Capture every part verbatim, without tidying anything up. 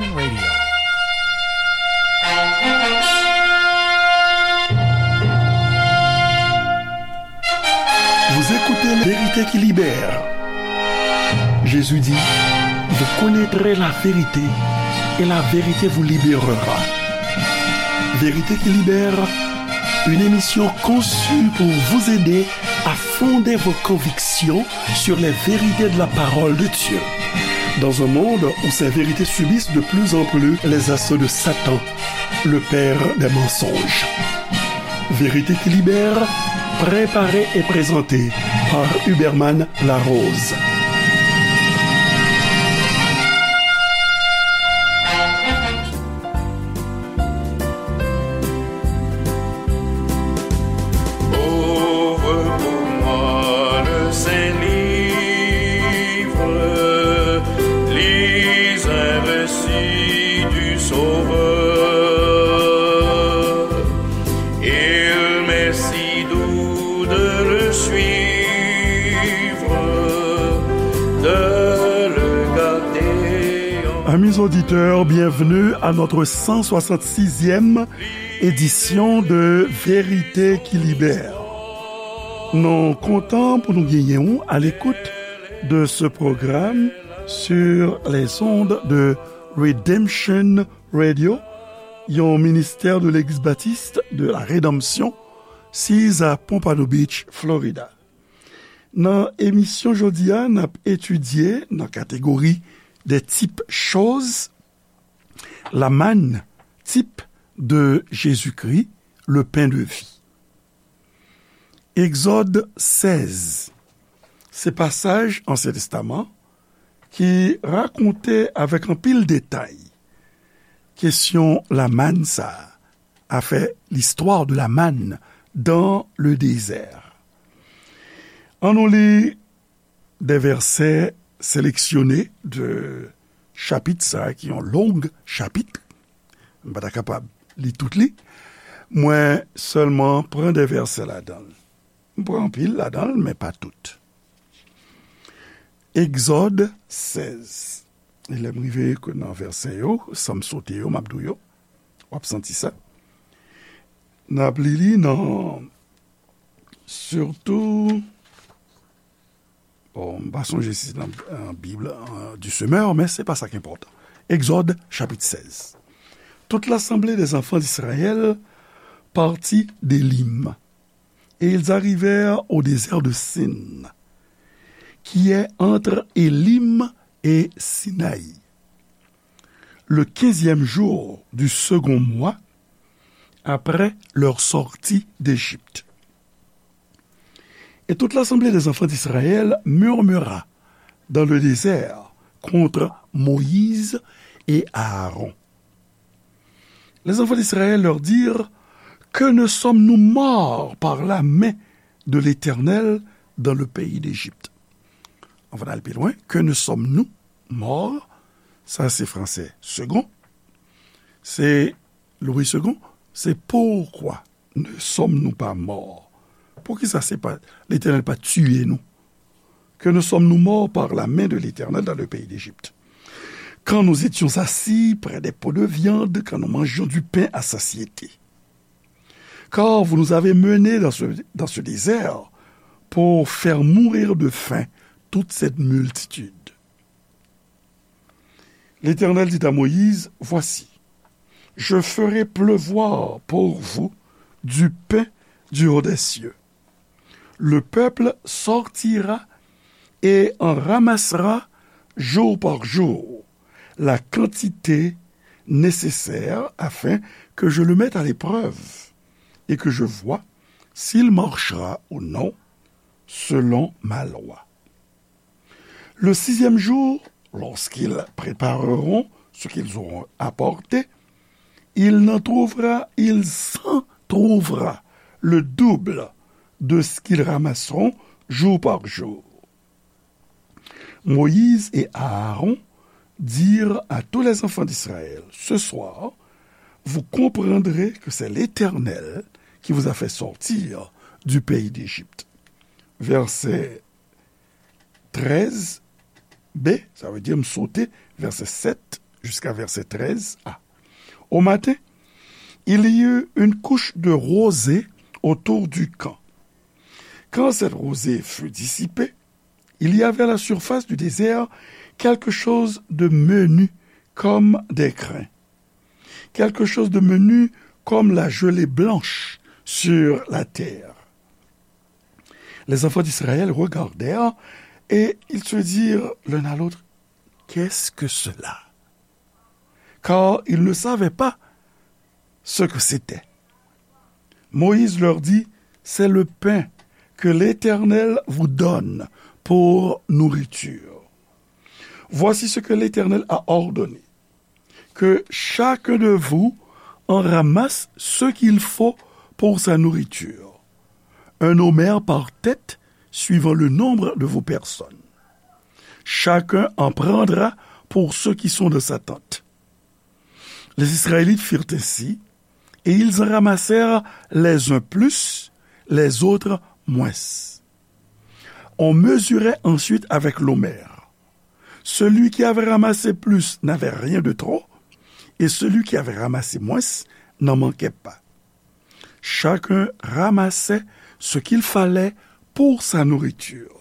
Radio. Vous écoutez La Vérité qui Libère. Jésus dit, vous connaîtrez la vérité et la vérité vous libérera. Vérité qui Libère, une émission conçue pour vous aider à fonder vos convictions sur les vérités de la parole de Dieu. Dans un monde où ces vérités subissent de plus en plus les assauts de Satan, le père des mensonges. Vérité qui Libère, préparée et présentée par Huberman Larose. Ouvre pour moi le Saint-Livre, lis un récit du Sauveur. Il m'est si doux de le suivre, de le garder en Amis auditeurs, bienvenue à notre cent soixante-sixième édition de Vérité qui Libère. Nou kontan pou nou genyen w à l'écoute de ce programme sur les ondes de Redemption Radio, yon ministè de Legliz Batis de la Redanmsyon, siz a Pompano Beach, Florida. Nan emisyon jodi a, n ap etidye nan kategori des types choses, la manne, type de Jésus-Christ, le pain de vie. Egzòd sèz, se pasaj Ansyen Testaman ki rakonte avèk anpil detay kesyon lamann sa a, afè l'histoire de la manne dans le désert. An nou li de vèsè seleksyone de chapit sa a, ki yon long chapit. M pa ta kapab li tout li. Mwen sèlman pran de vèsè ladan l. M pran anpil ladan l, men pa tout. Egzòd sèz. E lè m rive nan vèsè yo, san m sote yo, m ap di w yo. W ap santi sa. N ap li li nan, sitou, bon, m pa sonje si se nan, euh, Bib, euh, du Semeur, men se pa sa ki enpòtan. Egzòd, chapit sèz. Toute l'assemblée des enfants d'Israël partit d'Élim, et ils arrivèrent au désert de Sin, qui est entre Élim et Sinaï, le quinzième jour du second mois après leur sortie d'Égypte. Et toute l'assemblée des enfants d'Israël murmura dans le désert contre Moïse et Aaron. Les enfants d'Israël leur dirent : Que ne sommes-nous morts par la main de l'Éternel dans le pays d'Égypte ? Anvan n al pi lwen, que ne sommes-nous morts, sa se fransè second, se Louis Segond, se pourquoi ne sommes-nous pas morts ? Poukisa se pa, Letènèl pa tiye nou ? Que ne sommes-nous morts par la main de l'Éternel dans le pays d'Égypte ? Quand nous étions assis près des pots de viande, quand nous mangions du pain à satiété. Car vous nous avez menés dans ce, dans ce désert pour faire mourir de faim toute cette multitude. L'Éternel dit à Moïse : Voici, je ferai pleuvoir pour vous du pain du haut des cieux. Le peuple sortira et en ramassera jour par jour la quantité nécessaire afin que je le mette à l'épreuve et que je voie s'il marchera ou non selon ma loi. Le sixième jour, lorsqu'ils prépareront ce qu'ils auront apporté, il n'en trouvera, il s'en trouvera le double de ce qu'ils ramasseront jour par jour. Moïse et Aaron dirent à tous les enfants d'Israël : Ce soir, vous comprendrez que c'est l'Éternel qui vous a fait sortir du pays d'Égypte. Verset treize B, sa vle di m sote vèsè sèt, jusqu'à verset treize A. Au matin, il y eut une couche de rosée autour du camp. Quand cette rosée fut dissipée, il y avait à la surface du désert quelque chose de menu comme des crins, quelque chose de menu comme la gelée blanche sur la terre. Les enfants d'Israël regardèrent et ils se dirent l'un à l'autre, qu'est-ce que cela ? Car ils ne savaient pas ce que c'était. Moïse leur dit, c'est le pain que l'Éternel vous donne pour nourriture. Voici ce que l'Éternel a ordonné, que chacun de vous en ramasse ce qu'il faut pour sa nourriture, un omer par tête, suivant le nombre de vos personnes. Chacun en prendra pour ceux qui sont dans sa tente. Les Israélites firent ainsi, et ils en ramassèrent les uns plus, les autres moins. On mesurait ensuite avec l'omer. Celui qui avait ramassé plus n'avait rien de trop, et celui qui avait ramassé moins n'en manquait pas. Chacun ramassait ce qu'il fallait pour sa nourriture.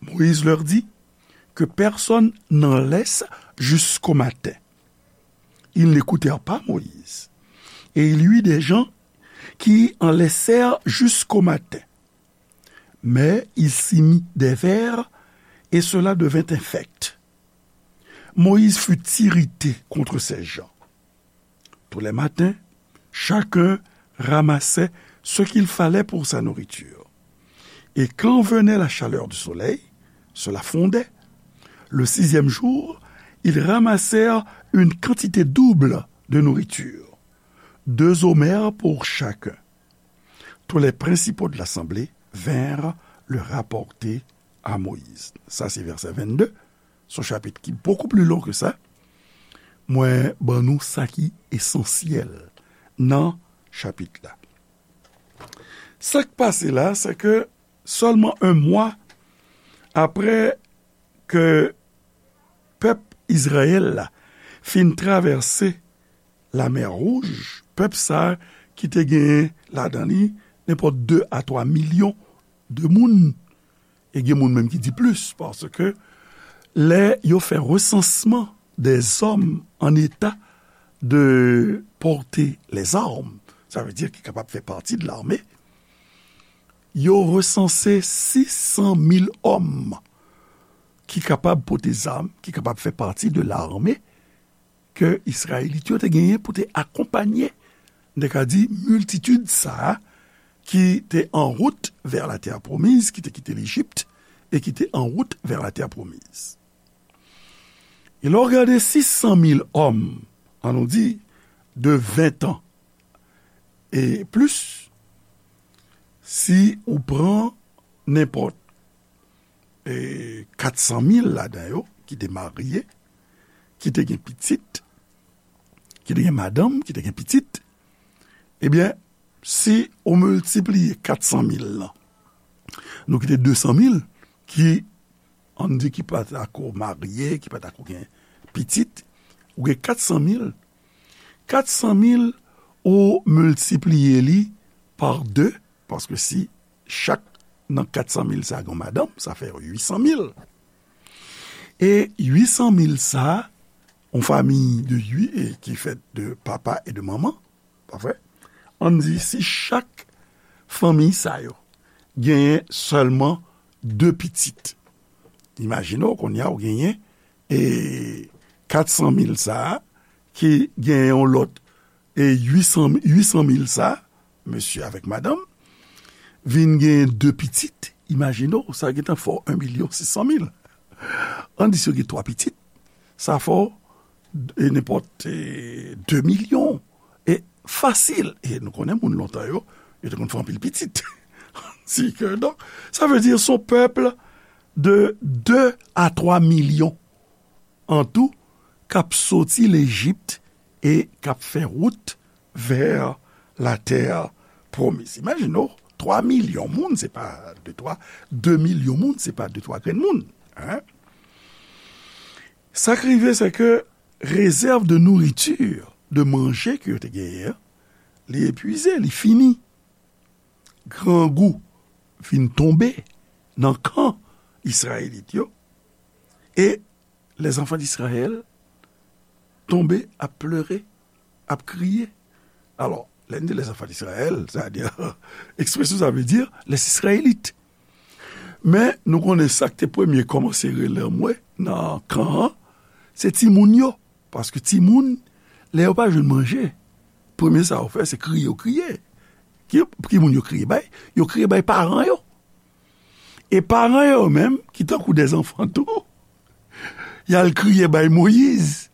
Moïse leur dit, que personne n'en laisse jusqu'au matin. Ils n'écoutèrent pas Moïse. Et il y eut des gens qui en laissèrent jusqu'au matin. Mais il s'y mit des vers, et cela devint infect. Moïse fut irrité contre ces gens. Tous les matins, chacun ramassait ce qu'il fallait pour sa nourriture. Et quand venait la chaleur du soleil, cela fondait. Le sixième jour, ils ramassèrent une quantité double de nourriture, deux omers pour chacun. Tous les principaux de l'assemblée vinrent le rapporter à Moïse. Sa se vèsè vennde. Se yon chapit ki bokou pli lon ke sa. Mwen ban nou sa ki esansyèl nan chapit la. Sa k pase la, se ke sèlman yon mwa apre ke pèp Izrayèl la fin travèse Lamè Wouj, pèp sa a ki te genyen ladan li nenpòt de a twa milyon de moun, e gen moun menm ki di plis, paske lè yo fè resansman des hommes en état de porter les armes, sa vle di ki kapab fè pati de lame, yo resanse sis san mil òm ki kapab pote zam, ki kapab fè pati de lame ke Izrayelit yo te genyen pou te akonpanye, n te ka di, miltitid sa a ki te an wout vè latè pwomiz, ki te kite Lejip e ki te an wout vè latè pwomiz. E lè w gade sis san mil òm, an nou di, de ven tan e plis, si ou pran nenpòt e kat san mil ladan yo ki te marye, ki te gen pitit, ki te gen madanm, ki te gen pitit, ebyen, si ou miltipliye kat san mil lan, nou kite de san mil ki, ann di, ki pa t ako marye, ki pa t ako gen pitit, ou gen kat san mil, kat san mil ou miltipliye li pa de, paske si chak nan kat san mil sa gen yon madanm, sa fè uit san mil. E uit san mil sa, yon fanmi de uit, e ki fèt de papa e de manman, pa vre? Ann di si chak fanmi sa yo genyen sèlman de pitit. Imajine w, kounye a, ou genyen, e, kat san mil sa a, ki genyen yon lòt, e, uit san, uit san mil sa, mesye avèk madanm, vin genyen de pitit, imajine w, sa gentan fè w yon milyon sis san mil. Ann di si yo gen twa pitit, sa fè w, e, nenpòt, e, de milyon. E fasil. E nou konnen moun lontan yo, yo te konn fè anpil pitit. Si ke, donk, sa vle di se yon pèp de de a twa milyon an tou k ap soti Lejip e k ap fè wout vè latè pwomiz. Imajine w, twa milyon moun, se pa de twa, de milyon moun, se pa de twa grenn moun, en. Sa k rive, se ke Rezèv de nouriti, de manje ke yo te genyen an, li epwize, li fini. Grangou vin tonbe nan kan Izrayelit yo, e les enfants d'Israël tonbe ap plere, ap kriye. Alò, lè n di les enfants d'Israël, sa vle di, ekspresyon sa vle di les Israélites. Men, nou konnen sa k te premye kòmanse rele anmwe nan kan an, se timoun yo. Paske timoun, lè yo pa jwenn manje, premye sa yo fè, se kriye, yo kriye. Ki, ki moun yo kriye bay? Yo kriye bay paran yo. E paran yo menm, ki tankou dèzanfan tou, y al kriye bay Moyiz.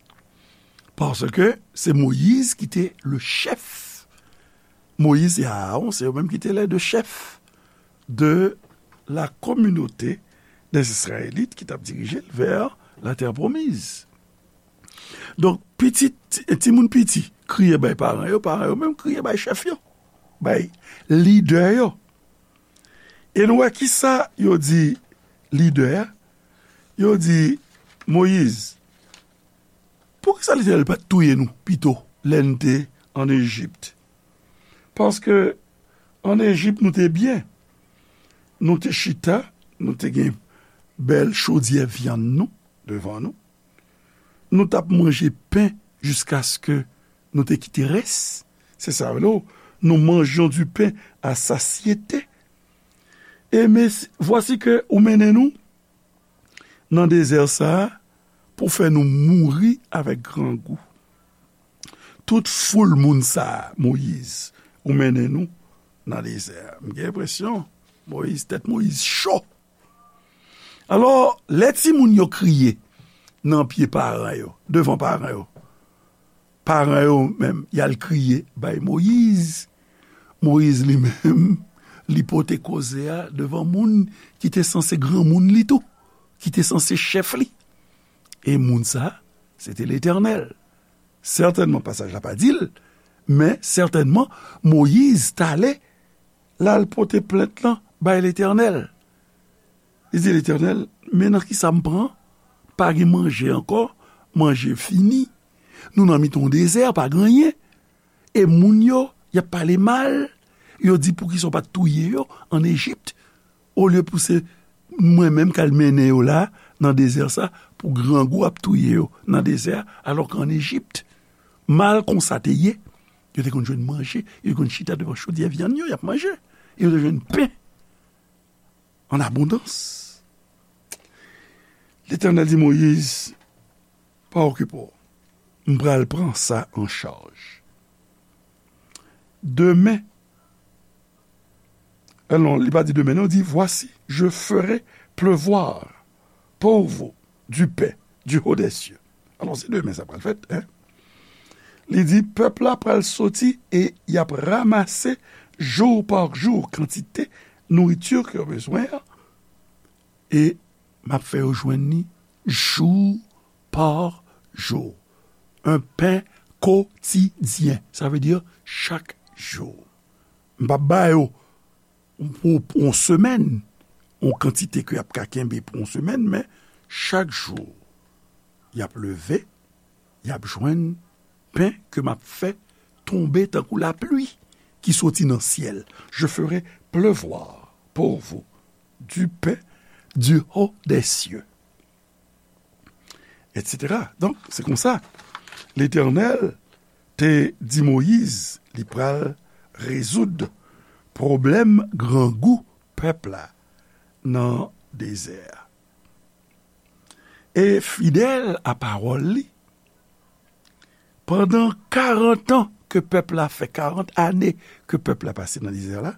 Paske se Moyiz ki te le chèf. Moyiz e Aawon, se yo menm ki te les deux chefs de la communauté des Israélites ki t ap dirije l vè la terre promise. Donk, pitit, timoun piti, kriye bay paran yo, paran yo menm kriye bay chèf yo, bay lidè yo. E nou wè kisa yo di lidè a? Yo di, Moyiz, poukisa Letènèl pa t touye nou pito lè n te ann Ejip? Paske ann Ejip, nou te byen. Nou te chita, nou te gen bèl chodyè vyann nou devan nou. Nou t ap manje pen jiskaske nou te kite rès. Se sa, nou, nous mangions du pain à satiété. E men, vwasi ke ou mennen nou nan dezè sa a pou fè nou mouri avèk grangou. Tout foul moun sa a, Moyiz, ou mennen nou nan dezè a. M gen enpresyon, Moyiz, tèt Moyiz cho. Alò, lè timoun yo kriye nan pye paran yo, devan paran yo, paran yo menm, y al kriye bay Moyiz. Moyiz li menm, li pote koze a devan moun ki te sanse granmoun li tou, ki te sanse chèf li. E moun sa, se te Letènèl. Sètènman, pasaj la pa di l, men sètènman, Moyiz t ale, l al pote plent lan bay Letènèl. Li di, Letènèl, men nan kisa m pran? Pa gen manje ankò, manje fini. Nou nan mitan yon dezè, pa gen anyen. E moun yo, y ap pale mal. Yo di, poukisa w pa t touye yo ann Ejip? Olye pou se mwen menm k al mennen yo la, nan dezè sa, pou grangou ap touye yo nan dezè a, alò ke ann Ejip, mal konsa te ye, yo te konn jwenn manje, yo te konn chita devan chodyè vyann yo, y ap manje, e yo te jwenn pen an abondans. Letènèl di Moyiz, pa okipe w, m pral pran sa an chaj. Demen, eh non, li pa di demen, non, li di, voici, je ferai pleuvoir pour vous du pain du haut des cieux. Alò, se demen sa pral fèt, en. Li di, pèp la pral soti e y ap ranmase jou pa jou kantite nouriti ke yo bezwen an, e m ap fè yo jwenn li jou pa jou. Un pain quotidien. Sa vle di chak jou. M p ap ba yo pou, pou yon semèn, yon kantite ke y ap ka kenbe pou yon semèn, men chak jou, y ap leve, y ap jwenn pen ke m ap fè tonbe tankou lapli ki soti nan syèl. Je ferai pleuvoir pour vous du pain du haut des cieux, et cetera. Donk, se konsa, Letènèl te di Moyiz li pral rezoud pwoblèm grangou pèp la nan dezè a. E fidèl a pawòl li, pandan karant an ke pèp la fè, karant ane ke pèp la pase nan dezè la,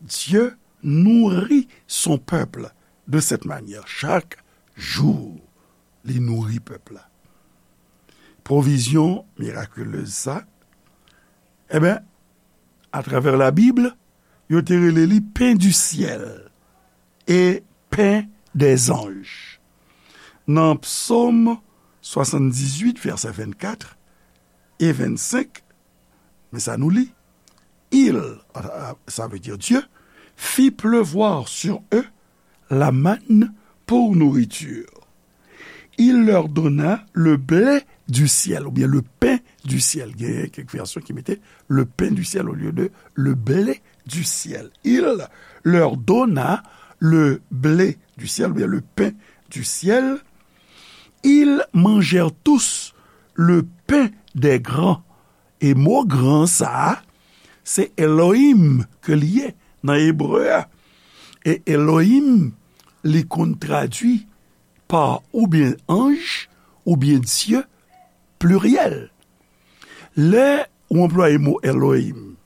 Dieu nourrit son peuple de cette manière. Chak jou, li nouri pèp la. Pwovizyon mirakilez sa, enben, atravè Labib, yo te rele li pen di syèl e pen dèzanj. Nan Psaume soixante-dix-huit, vèsè vennkat e vennsenk, men sa nou li, il, sa vle di Dieu, fit pleuvoir sur eux la manne pour nourriture. Il leur donna le blé du ciel, oubyen le pain du ciel. Gen kèk vèsyon ki mete le pain du ciel au lieu de le blé du ciel. Il leur donna le blé du ciel, oubyen le pain du ciel. Ils mangèrent tous le pain des grands. E mo gran sa a, se Elohim ke li ye nan ebre a. E Elohim, li konn tradui pa oubyen anj, oubyen Dye, pliryèl. Lè ou anplwaye mo Elohim,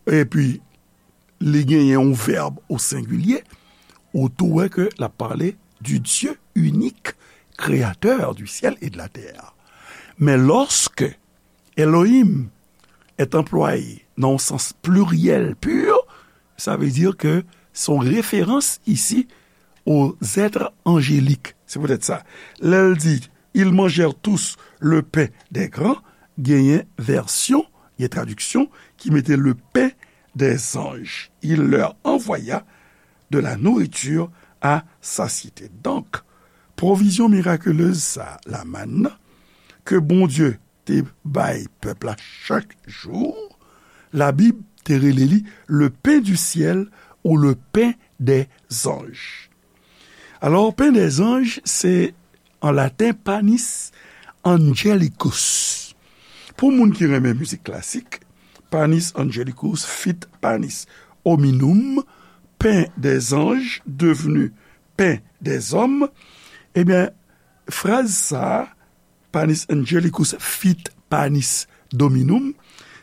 epi li genyen yon vèb o sengilye, ou tou wè ke l ap pale du Dieu unique, créateur du ciel et de la terre. Men lòske Elohim est employé nan yon sans pliryèl pur, sa vle di ke se yon referans isi aux êtres angéliques. Se poutèt sa, lè l di, ils mangèrent tous le pain des grands, genyen vèsyon, gen tradiksyon ki mete le pain des anges. Il leur envoya de la nourriture à satiété. Donk, pwovizyon mirakelez sa, lamann nan, ke Bondye te bay pèp la chak jou, Labib te rele li le pain du ciel ou le pain des anges. Alò, pain des anges, se an laten Panis Angelicus. Pou moun ki renmen mizik klasik, Panis Angelicus fit Panis Hominum, pain des anges devenu pain des hommes. Ebyen, fraz sa a, Panis Angelicus fit Panis Dominum,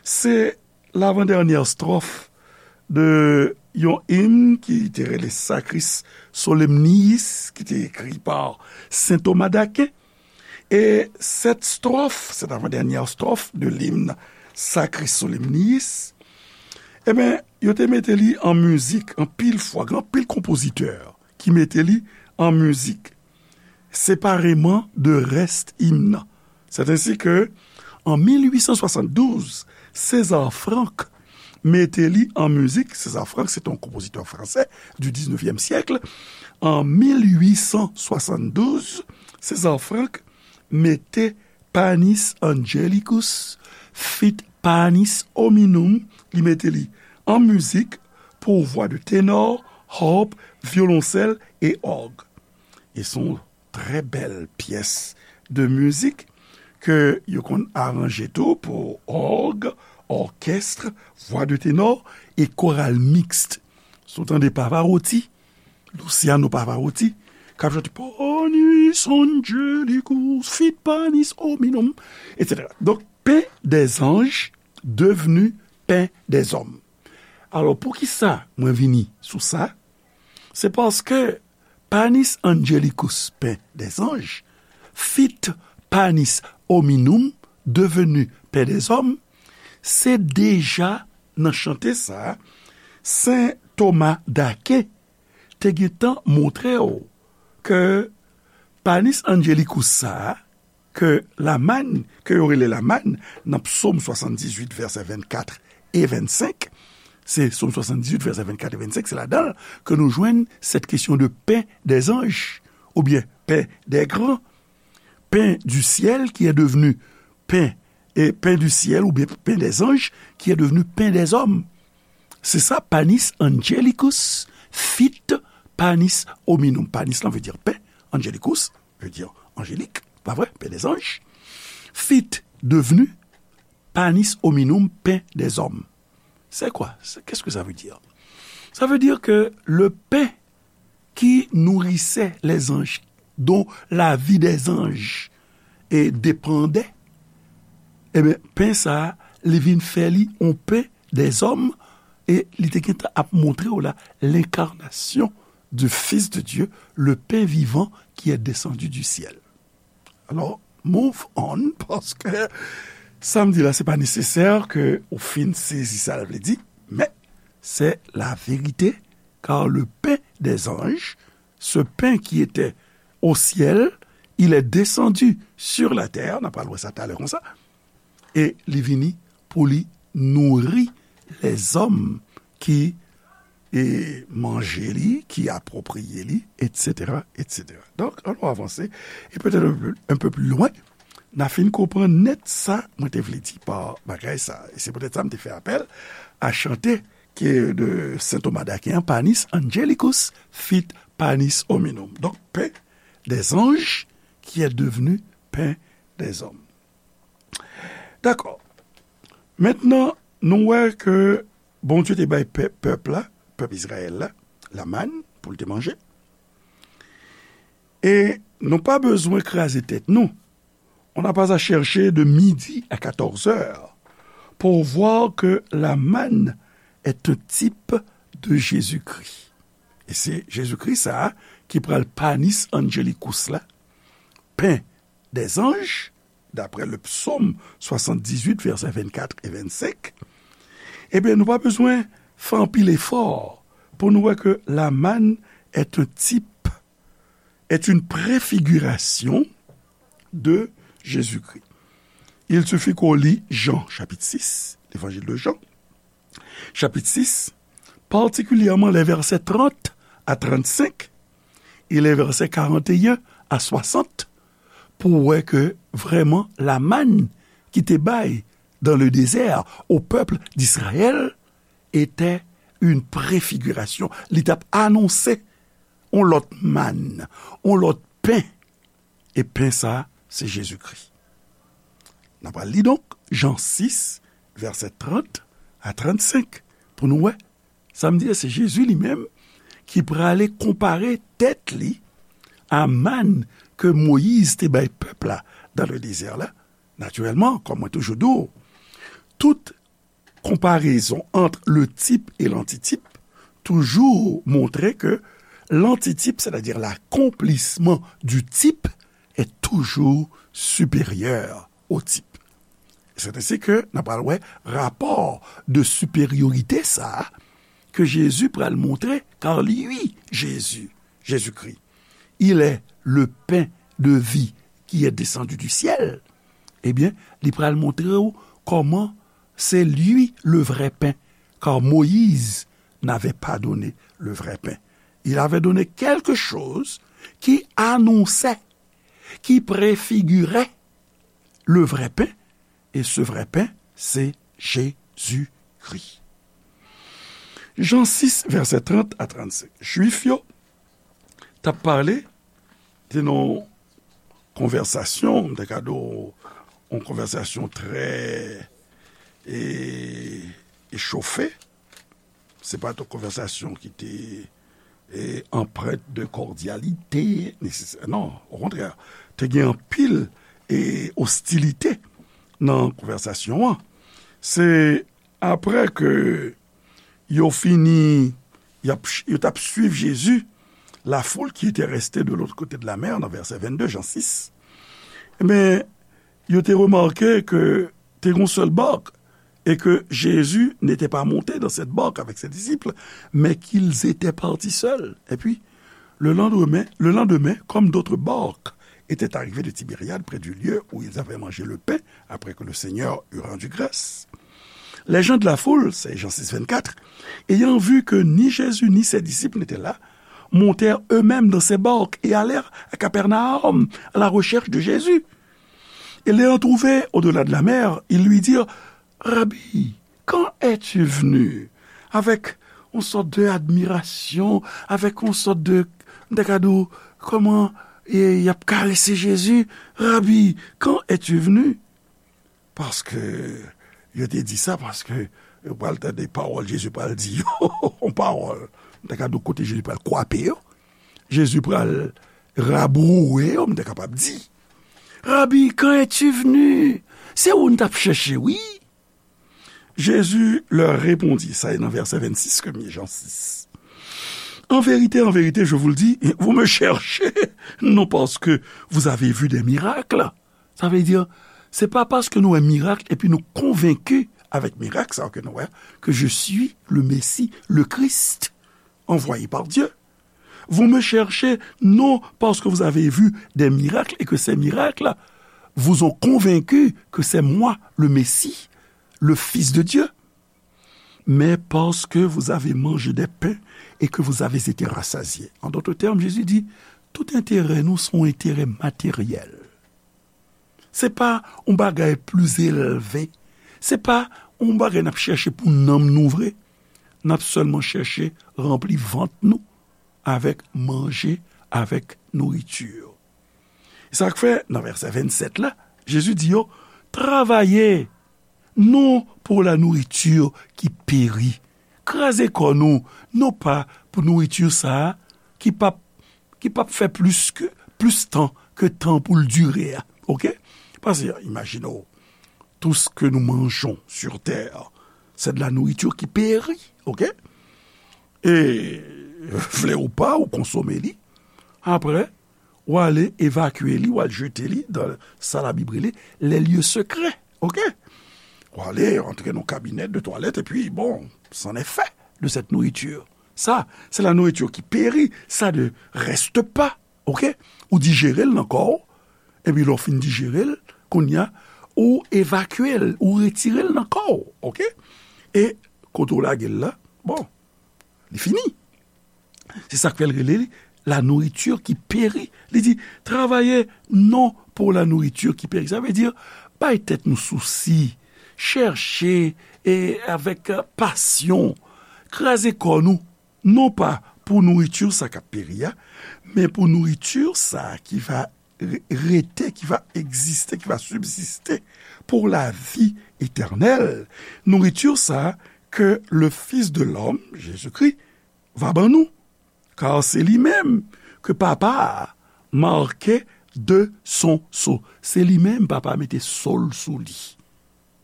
se lavandènyè estròf de yon im ki te rele Sacris Solemniis, ki te ekri pa Sen Toma d'Aken. E sèt estròf, sèt avandènyè estròf de limn Sacris Solemniis, ebyen, yo te mete li an mizik anpil fwa, gen anpil konpozitè ki mete li an mizik separeman de rès im nan. C'est ainsi que, en mil huit cent soixante-douze, César Franck mete li an mizik. César Franck, se te yon konpozitè fransè du dix-neuvième siècle. En mil huit cent soixante-douze, César Franck mete Panis Angelicus fit Panis Hominum, li mete li an mizik pour voix de ténor, harpe, violoncelle et orgue. E se yon trè bèl pyès de mizik ke yo konn aranje tou pou òg, òkès, vwa de tenò e koral miks. Si w tande Pavarotti, Luciano Pavarotti, k ap chante Panis Angelicus, fit Panis Hominum, et cetera. Donk, pain des anges devenu pain des hommes. Alò, poukisa mwen vini sou sa? Se paske Panis Angelicus, pain des anges, fit Panis Hominum, devenu pain des hommes, se deja nan chante sa a, Sen Toma d'Aken te gentan montre w ke Panis Angelicus sa a, ke lamann, ke yo rele lamann, nan Psaume soixante-dix-huit, vèsè vennkat e vennsenk, se Psaume soixante-dix-huit, vèsè vennkat e vennsenk, se ladan l ke nou jwenn cette question de pain des anges, oubyen pain des grands, pain du ciel qui est devenu pain, et pain du ciel, oubyen pain des anges qui est devenu pain des hommes. Se sa, Panis Angelicus fit Panis Hominum. Panis lan vle di pain, Angelicus vle di anjelik, pa vre? Pain des anges. Fit devenu Panis Hominum, pain des hommes. C'est quoi? C'est, qu'est-ce que ça veut dire? Ça veut dire que le pain qui nourrissait les anges, dont la vie des anges dépendait, ebyen, pen sa a, li vin fè li yon pain des hommes, e li te gentan ap montre w la, l'incarnation du Fils de Dieu, le pain vivant qui est descendu du ciel. Alò, move on, paske sa m di la, se pa nesesè ke ou fin sezi sa l vle di, men c'est la vérité, car le pain des anges, ce pain qui était au ciel, il est descendu sur la terre, n a pral wè sa talè konsa, e li vini pou li nouri lèzòm ki e manje li, ki apwopriye li, et cetera, et cetera. Donk, ann nou avanse, e petèt un peu, un peu plus loin, n a fin konprann nèt sa mwen te vle di pa bagay sa. E se poutèt sa m te fè apèl a chante ke de Sen Toma d'Aken an, Panis Angelicus fit panis hominum. Donk, pain des anges qui est devenu pain des hommes. Dakò. Mentnan, nou wè ke Bondye te bay pè-, pèp la, pèp Izrayèl la, lamann pou l te manje. E nou pa bezwen kraze tèt nou. On n'a pas à chercher de midi à quatorze heures pour voir que la manne est un type de Jésus-Christ. E se Jezikri sa a ki pral panis angelicus la, pen dèzanj, daprè le psaume soixante-dix-huit, vèsè vennkat e vennsenk, ebyen, nou pa bezwen fè anpil efò pou nou wè ke la manne est un type, est une préfiguration de Jésus-Christ. Il suffit qu'on lit Jean, chapitre six, l'évangile de Jean, chapitre six, particulièrement les versets trente à trente-cinq et les versets quarante et un à soixante, pou wè ke vrèman la manne ki te bay dans le désert au peuple d'Israël était une préfiguration. Li t ap anonse on lòt mann, on lòt pen. E pen sa, se Jezikri. N ap al li donk Jan sis, vèsè trant a trannsenk, pou nou wè. Sa m di a, se Jezi li menm ki prale konpare tèt li a mann ke Moyiz te bay pèp la dans le désert la. Natirèlman, kòm mwen toujou di w, tout konparezon ant le type et l'antitype toujou montre ke l'antitype, c'est-à-dire l'accomplissement du type, est toujours supérieur au type. C'est ainsi que n ap pral wè rapò de supériorité sa a ke Jezi pral montre, car lui, Jésus, Jésus-Christ, il est le pain de vie qui est descendu du ciel. Ebyen, li pral montre w kòman c'est lui le vrai pain, car Moïse n'avait pas donné le vrai pain. Il avait donné quelque chose qui annonçait, qui préfigurait le vrai pain, et ce vrai pain, c'est Jésus-Christ. Jan sis, vèsè trant a trannsenk. Jwif yo t ap pale, te nan konvèsasyon, m te ka di w, yon konvèsasyon trè, e, echofe. Se pa t yon konvèsasyon ki te, e, empreinte de cordialité, nesesè-, non, okontrè, te gen anpil, e, ostilite nan konvèsasyon an. Se apre ke yo fini, y ap, yo t ap swiv Jezi, la foule qui était restée de l'autre côté de la mer, nan vèsè vennde, Jan sis. Men, yo te remake ke te gen yon sèl bark, et que Jésus n'était pas monté dans cette barque avec ses disciples, mais qu'ils étaient partis seuls. Et puis, le lendemain, le lendemain, comme d'autres barques étaient arrivées de Tibériade près du lieu où ils avaient mangé le pain après que le Seigneur eut rendu grâce, les gens de la foule, c'est Jean six vingt-quatre, ayant vu que ni Jésus ni ses disciples n'étaient là, montèrent eux-mêmes dans ces barques et allèrent à Capernaum à la recherche de Jésus. Et l'ayant trouvé au-delà de la mer, ils lui dirent : « Rabbi, quand es-tu venu ? » Avec une sorte d'admiration, avec une sorte de, m ta ka di w, kòman, e, y ap karese Jezi. « Rabbi, quand es-tu venu ? » Paske yo te di sa, paske yo pral tande pawòl Jezi pral di yo, yon pawòl. M ta ka di w kote Jezi pral kwape yo. Jezi pral rabouwe yo, m ta kapab di. « Rabbi, quand es-tu venu ? » Se ou n t ap chèche, wi. Jésus leur répondit, sa e nan vèsè vennsis ke m ye, Jan sis. « En vérité, en vérité, je vous le dis, vous me cherchez, non parce que vous avez vu des miracles. » Sa vle di, se pa paske nou wè mirak epi nou konvenki avèk mirak sa ke nou wè, que je suis le Messie, le Christ, envoyé par Dieu. Vous me cherchez non parce que vous avez vu des miracles et que ces miracles vous ont convaincu que c'est moi le Messie, le Fils de Dieu, mais parce que vous avez mangé des pains et que vous avez été rassasiés. En d'autres termes, Jésus dit, tout enterè nou se yon enterè materyèl. Se pa yon bagay pli elve. Se pa yon bagay n ap chèche pou nanm nou vre. N ap sèlman chèche ranpli vant nou avèk manje, avèk nouriti. E sa k fè, nan vèsè vennsèt la, Jezi di yo, travaye non pour la nourriture qui périt. Kraze kò nou, non pa pou nouriti sa a ki p ap, ki p ap fè plis ke, plis tan ke tan pou l dire a. Oke? Paske, imajine w, tout ce que nous mangeons sur terre, c'est de la nourriture qui périt. Oke? E vle ou pa, ou konsome li. Apre, ou ale evakye li, ou al jete li dan sa Labib rele les lieux secrets. Oke? Ou ale antre nan kabinèt de twalèt, epi, bon, c'en est fait de cette nourriture. Ça, c'est la nourriture qui périt. Ça ne reste pas. Oke? Ou dijere l nan kò w, epi lè w fin dijere l, kounye a, ou evakye l, ou retire l nan kò w. Oke? E kote w lage l la, bon, li fini. Se sa k fè l rele li la nourriture qui périt. Li di, travaye non pour la nourriture qui périt. Sa vle di, bay tèt nou sousi, chèche, e avèk, e, pasyon, kraze kò nou, non pa pou nouriti sa k ap peri a, men pou nouriti sa ki va re-, rete, ki va egziste, ki va sibsiste pour la vie éternelle. Nouriti sa ke le Fils de l'homme, Jésus-Christ, va ban nou. Kar se li menm ke Papa a make de son sceau. Se li menm Papa a mete sceau l sou li.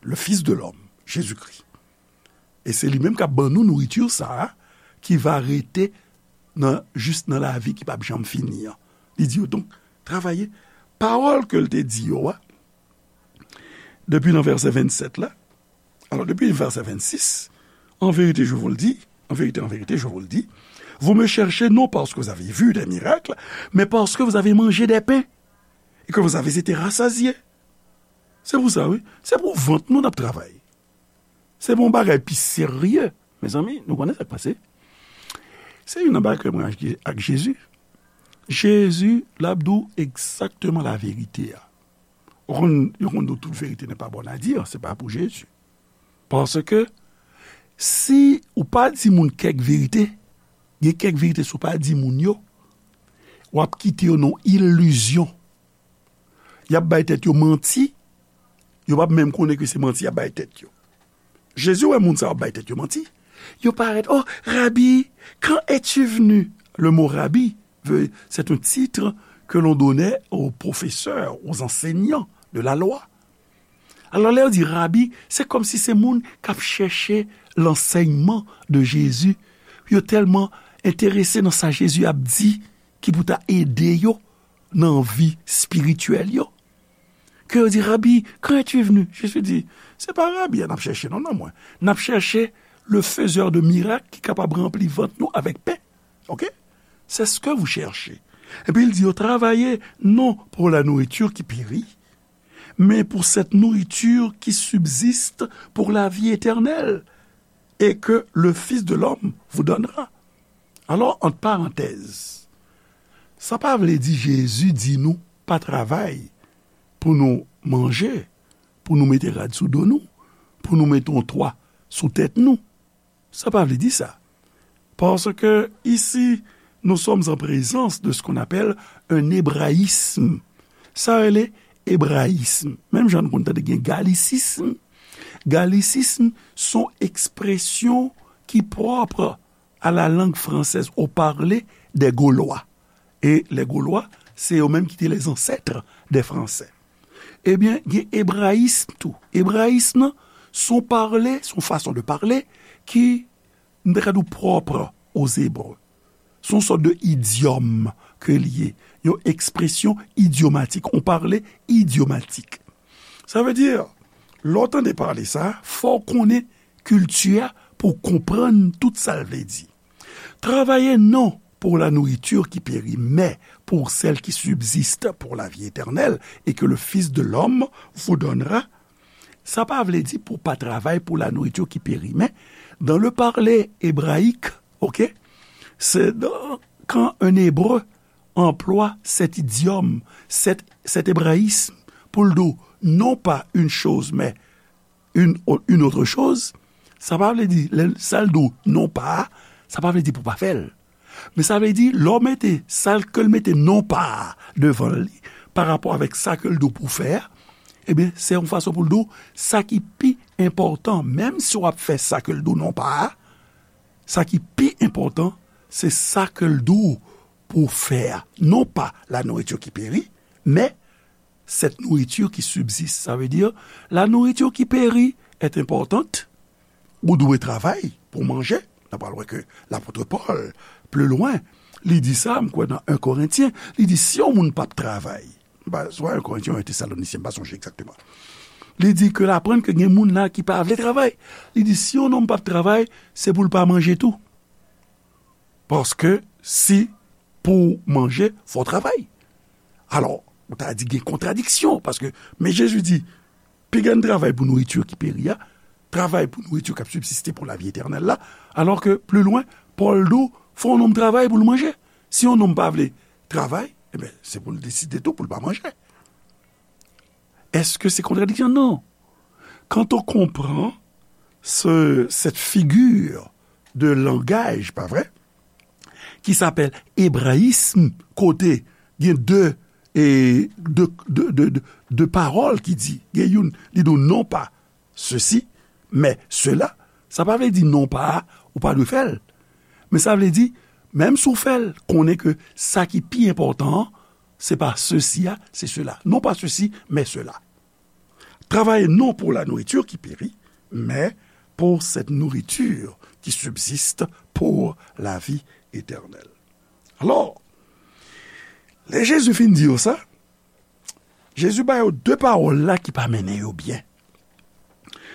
Le Fils de l'homme, Jésus-Christ. E se li menm k ap ban nou nouriti sa a, ki va rete nan, jis nan lavi ki p ap janm fini an. Li di yo, donk, travaye. Pawòl ke l te di yo a, depi nan vèsè vennsèt la, alò, depi vèsè vennsis, en vérité, je vous le dis, en vérité, en vérité, je vous le dis, vous me cherchez non parce que vous avez vu des miracles, mais parce que vous avez mangé des pains et que vous avez été rassasiés. Se pou sa, wi. Se pou vant nou n ap travay. Se pou yon bagay pi serye. Mezanmi, nou konnen sa k pase. Se youn nan bagay ke mwen ak, ak Jezi. Jezi, l ap di w egzakteman laverite a. Ou konn, yo konn di w tout vérité n'est pas bonne à dire, se pa pou Jezi. Paske si ou pa di moun kèk verite, gen kèk verite si w pa di moun yo, w ap kite yo nan ilizyon. Y ap bay tèt yo manti, yo p ap menm konnen ke se manti y ap bay tèt yo. Jezi wè moun sa yo ap bay tèt yo manti. Yo parèt, oh, Rabbi, quand es-tu venu? Le mot Rabbi veut, c'est un titre que l'on donnait aux professeurs, aux enseignants de la loi. Alò, lè yo di Rabbi, se kòmsi se moun k ap chèche lansèyman de Jezi. Yo tèlman enterese nan sa Jezi ap di ki pou ta ede yo nan vi espirityèl yo. Ke yo di, Rabbi, quand es-tu venu? Jezi di, se pa Rabbi a n ap chèche, non, nan mwen. N ap chèche le faiseur de miracle ki kapab ranpli vant nou avèk pen. Oke? C'est ce que vous cherchez. Epi l di yo, travaillez non pour la nourriture qui périt, mais pour cette nourriture qui subsiste pour la vie éternelle et que le Fils de l'homme vous donnera. Alò, ant parantèz, sa pa vle di Jezi di nou pa travay pou nou manje, pou nou mete rad sou do nou, pou nou mete yon twa sou tèt nou. Sa pa vle di sa. Parce que ici, nous sommes en présence de ce qu'on appelle un hébraïsme. Sa rele ebrayism. Menm jan nou konn tande gen galisism. Galisism se yon ekspresyon ki pwòp à la langue française, au parler des Gaulois. E lè Golwa, se yo menm ki te les ancêtres des Français. Ebyen, gen ebrayism tou. Ebrayism nan, se yon pale, se yon fason de pale ki, m ta ka di w, pwòp aux Hébreux. Se yon sòt de idyòm ke l ye. Yon ekspresyon idyomatik, yon pale idyomatik. Sa vle di, lè w tande pale sa, fò w konnen kilti a pou w konprann tout sa l vle di. Travaillez non pour la nourriture qui périt, mais pour celle qui subsiste pour la vie éternelle et que le Fils de l'homme vous donnera. Sa pa vle di pou pa travay pou la nourriture qui périt, mais dans le parler hébraïque, ok, c'est dans, quand un Hébreu emploie cet idiome, cet, cet hébraïsme pou l di w non pa une chose, mais une, une autre chose, sa pa vle di, lè sa l di w non pa a, sa pa vle di pou w pa fè l. Men sa vle di, lè w mete sa ke l mete non pa a devan li, pa rapò avèk sa ke l di w pou w fè a, ebyen, se yon fason pou l di w, sa ki pi enpòtan, menm si w ap fè sa ke l di w non pa a, sa ki pi enpòtan, se sa ke l di w pou w fè a. Non pas la nourriture qui périt, mais cette nourriture qui subsiste. Sa vle di, la nourriture qui périt est importante. Ou dwe travay pou w manje. N a pral wè ke lapot Pòl, pli lwen, li di sa, m kwè nan en Korentyen, li di, si yon moun p ap travay, m pa, swa en Korentyen ou en Tesalonisyen, m pa sonje egzakteman. Li di ke l aprann ke gen moun la ki pa vle travay. Li di, si yon nonm p ap travay, se pou l pa manje tou. Paske si pou w manje, fò w travay. Alò, ou ta di gen kontradiksyon, paske, men Jezi di, piga n travay pou nouriti ki peri a, travay pou nouriti k ap sibsiste pou lavi etènèl la, alò ke, pli lwen, Pòl di w, fò yon nonm travay pou l manje. Si yon nonm pa vle travay, ebyen, se pou l deside tou pou l pa manje. Èske se kontradiksyon? Non. Quand on comprend ce, cette figure de langage, pa vre, ki s'appelle hébraïsme, kote gen de, e, de, de, de, de, de pawòl ki di, gen youn, li di w non pa ceci, mais cela, sa pa vle di non pa a, ou pa dwe fè l. Men sa vle di, menm si w fè l, konnen ke sa ki pi enpòtan an, se pa ceci a, se cela. Non pas ceci, mais cela. Travaillez non pour la nourriture qui périt, mais pour cette nourriture qui subsiste pour la vie éternelle. Alò, lè Jezi fin di yo sa, Jezi ba yo de pawòl la ki pa mennen yo byen.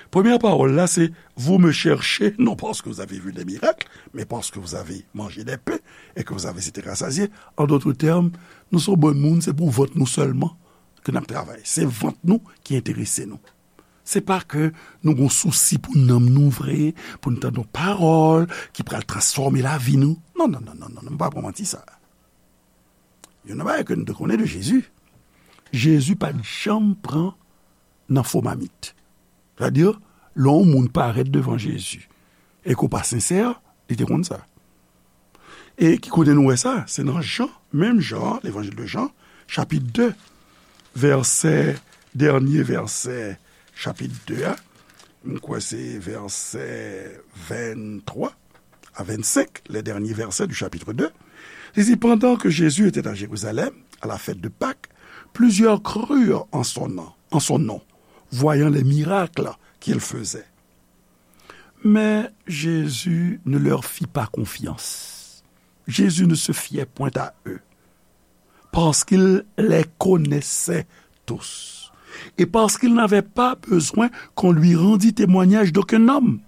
Premyè pawòl la, se, vous me cherchez, non parce que vous avez vu des miracles, mais parce que vous avez mangé des pains et que vous avez été rassasiés. En d'autres termes, nou se yon bann moun, se pou vant nou sèlman ke n ap travay. Se vant nou ki enterese nou. Se pa ke nou gon sousi pou nanm nou vre, pou n tande yon pawòl ki pral transfòme lavi nou. Non, non, non, non, non, non, m pa pran manti sa. Youn nan bagay ke nou te konnen de Jezi, Jezi pa t janm pran nan fo mamit. Sètadi, lè yon moun parèt devan Jezi e ke w pa sensè, li te konn sa. E ki kote nou wè sa? Se nan Jan, menm Jan, Levanjil de Jan, chapit de, vèsè, dènye vèsè chapit de a. M kwè se vèsè venntwa a vennsenk, les derniers versets du chapitre deux. Li di, pendant que Jésus était à Jérusalem, à la fête de Pâques, plusieurs crurent en son nom, en son nom, voyant les miracles qu'il faisait. Mais Jésus ne leur fit pas confiance. Jésus ne se fiait point à eux, parce qu'il les connaissait tous, et parce qu'il n'avait pas besoin qu'on lui rendît témoignage d'aucun homme,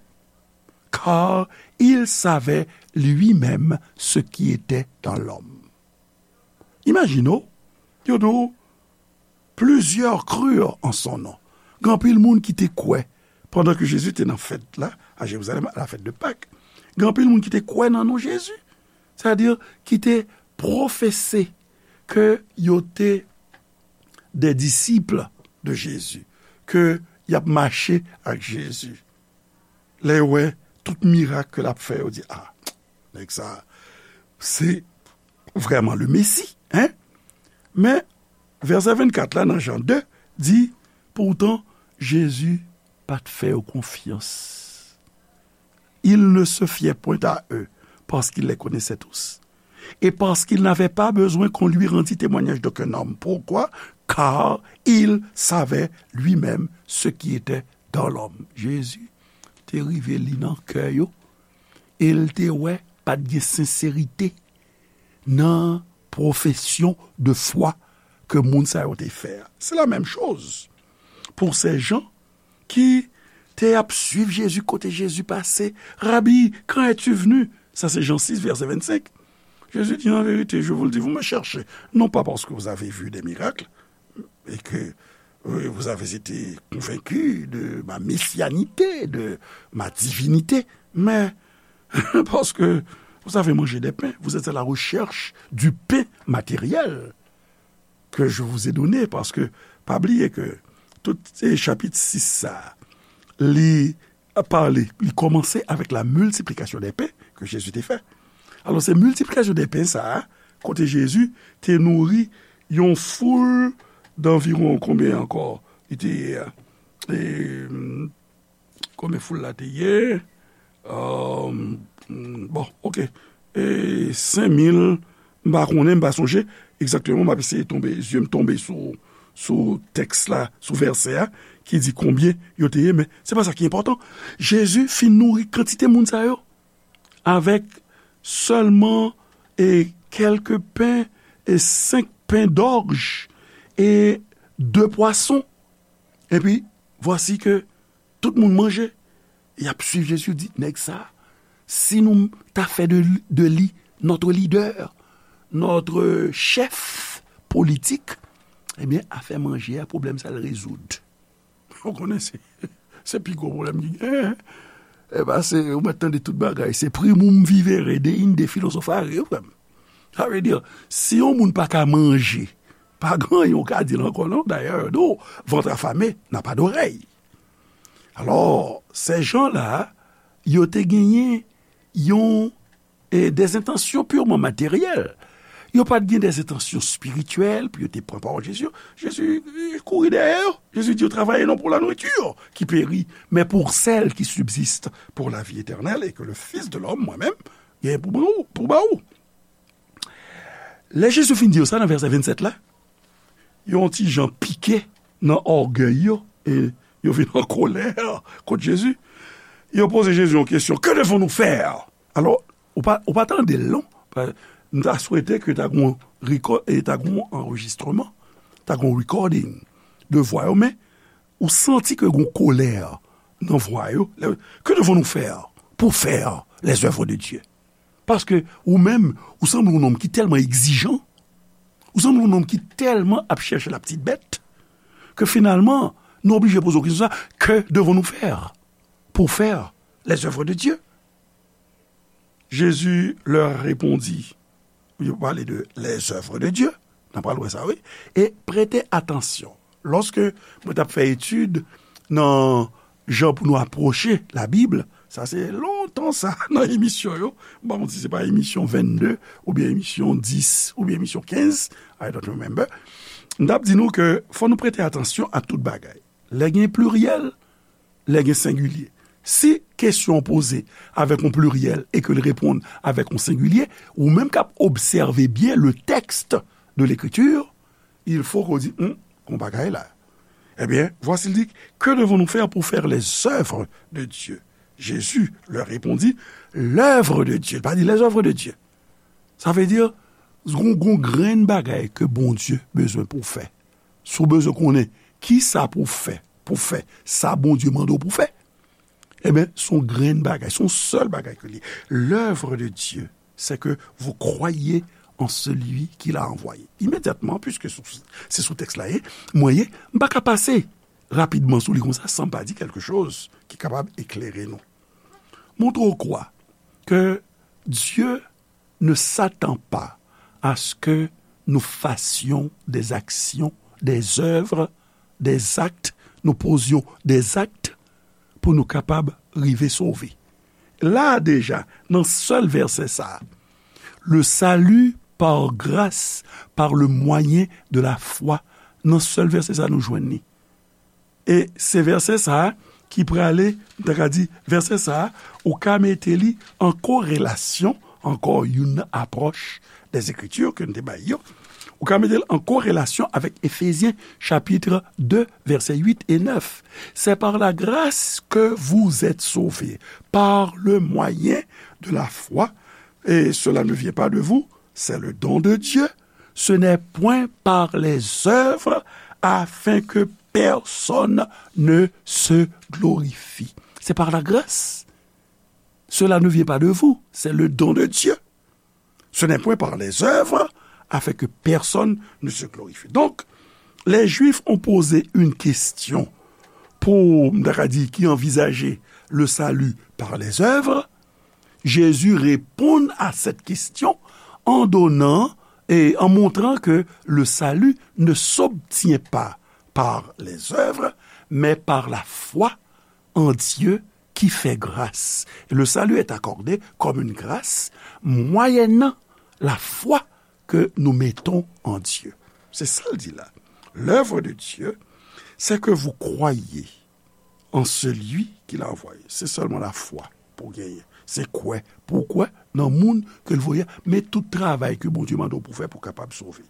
car il savait lui-même ce qui était dans l'homme. Imajine w, yo di w, plusieurs crurent en son nom. Gen anpil moun ki te kwè, pandan ke Jezi te nan fèt la, a Jerizalèm, a la fête de Pâques. Gen anpil moun ki te kwè nan non Jezi. Sètadi, ki te pwofese ke yo te des disciples de Jésus, ke y ap mache ak Jezi. Lè yo wè tout mirak ke l ap fè, yo di, a, nèg sa, se vrèman le Messie, hein? Men, vèsè vennkat la, nan Jan de, di, pourtant, Jezi pa t fè yo konfyans. Il ne se fiait point à eux, parce qu'il les connaissait tous, et parce qu'il n'avait pas besoin qu'on lui rendît témoignage d'aucun homme. Pourquoi? Car il savait lui-même ce qui était dans l'homme. Jezi te rive li nan kè yo, e l te wè pa t gen senserite nan pwofesyon de fwa ke moun sa yo te fè a. C'est la même chose pour ces gens ki te ap suiv Jezi kote Jezi pase. Rabi, quand es-tu venu? Sa se Jan sis, vèsè vennsenk. Jezi di, en vérité, je vous le dis, vous me cherchez, non pas parce que vous avez vu des miracles, et que, euh, vous avez été convaincus de ma messianité, de ma divinité, mais parce que vous avez mangé des pains, vous êtes à la recherche du pain matériel que je vous ai donné, parce que pa bliye ke tout, e, chapit sis sa a, li pale, li kòmanse avèk la miltiplikasyon dè pen ke Jezi te fè. Alò, se miltiplikasyon dè pen sa a, kote Jezi te nouri yon foul danviwon konbyen ankò? Li te, e, konbyen foul la te ye? Bon, oke. E, senk mil, m pa konnen, m pa sonje egzakteman, m ap eseye tonbe, zye m tonbe sou, sou tèks la, sou vèsè a, ki di konbyen yo te ye, men se pa sa ki enpòtan. Jezi fin nouri kantite moun sa yo avèk sèlman, e, kèlke pen e senk pen dòj e de pwason. Epi, vwasi ke tout moun manje. Y ap swiv Jezi, yo di, nèg sa, si nou ta fè de, de li notre leader, notre chef politik, ebyen, afè manje a, pwoblèm sa l rezoud. Ou konnen, se, se pi gwo pwoblèm ki genyen. E ba, se, ou mèt tande tout bagay. Se primum vivere, deinde philosophere, wi, frè m. Sa vle di, si yon moun pa ka manje, pa gen anyen ou ka di l ankò, non. Dayè, yo di w, ventre affamé n'a pas d'oreille. Alò, ces gens-là, yo te genyen yon, e, des intentions purement matérielles. Yo pa t gen des intentions spirituelles pou yo te pran pawòl Jezi. Jezi, e, kouri dèyè yo. Jezi di yo, travaillez non pour la nourriture qui périt, mais pour celle qui subsiste pour la vie éternelle et que le Fils de l'homme, mwen menm, gen pou ba ou, pou ba ou. Lè Jezi fin di yo sa nan vèsè vennsèt la, yo yon ti jan pike nan ògèy yo, e yo vin an kolè kont Jezi. Yo poze Jezi yon kesyon, que devons-nous faire? Alò, ou pa, ou pa tande l, non? Pa, m ta swete ke ta gon reko-, e ta gon anrejistreman, ta gon recording de vwa yo, men ou santi ke gon kolè nan vwa yo. Lè, que devons-nous faire pour faire les œuvres de Dieu? Paske ou menm, ou sanble yon nonm ki tèlman egzijan, ou sanble yon nonm ki tèlman ap chèche la petite bête, ke finalman, nou oblije poze w kesyon sa, que devons-nous faire pour faire les œuvres de Dieu? Jésus leur répondit, yo pale de les œuvres de Dieu, n ap pral wè sa, wi, et prêtez attention. Lòske mwen t ap fè etid nan jan pou nou apwoche Labib, sa se lontan sa, nan emisyon yo, m pa konn si se pa emisyon vennde oubyen emisyon dis oubyen emisyon kenz, I don't remember, m t ap di nou ke fò nou prete atansyon a tout bagay. Lè gen pliryèl, lè gen sengilye. Si kesyon an poze avèk yon pliryèl e ke l reponn avèk yon sengilye, ou menm k ap obsève byen le texte de l'écriture, il faut ke w di, hmm, gon bagay la. Eh bien, voici, il dit, que devons-nous faire pour faire les œuvres de Dieu? Jésus leur répondit, l'œuvre de Dieu. Li pa di les œuvres de Dieu. Sa vle di, gon, gon grenn bagay ke Bondye bezwen pou w fè. Si w bezwen konnen ki sa pou w fè, pou w fè sa Bondye mande w pou w fè, ebyen, se yon grenn bagay, se yon sèl bagay ke li. L'œuvre de Dieu, c'est que vous croyez en celui qui l'a envoyé. Imedyatman, puiske sou, se sou tèks la ye, mwen ye, m pa ka pase rapidman sou li konsa san m pa di quelque chose ki kapab eklere nou. Montre ou kwa ke Dieu ne s'attend pas à ce que nous fassions des actions, des œuvres, des actes, nous posions des actes pou nou kapab rive sove. La deja, nan sèl vèsè sa, le salut par grâce, par le moyen de la foi, nan sèl vèsè sa nou jwenn li. E se vèsè sa a ki prale, m ta ka di, vèsè sa a, ou ka mete li an korelasyon, ankò youn apwòch des Écritures ke n te bay yo, ou ka mete l an korelasyon avèk Efezyen chapit de, vèsè uit e nèf. C'est par la grâce que vous êtes sauvés, par le moyen de la foi, et cela ne vient pas de vous, c'est le don de Dieu, ce n'est point par les œuvres, afin que personne ne se glorifie. C'est par la grâce. Cela ne vient pas de vous, c'est le don de Dieu. Ce n'est point par les œuvres, afin que personne ne se glorifie. Donc, les Juifs ont posé une question pour, m ta ka di, qui envisageait le salut par les œuvres. Jésus répond à cette question en donnant et en montrant que le salut ne s'obtient pas par les œuvres, mais par la foi en Dieu qui fait grâce. Et le salut est accordé comme une grâce moyennant la foi que nous mettons en Dieu. Se sa l di la. L'œuvre de Dieu, c'est que vous croyez en celui qui l'a envoyé. Se sèlman lafwa pou genyen. Se kwè. Pou kwè nan moun ke l voye a. Men tout travay ke Bondye mande w pou fè pou kapab sove.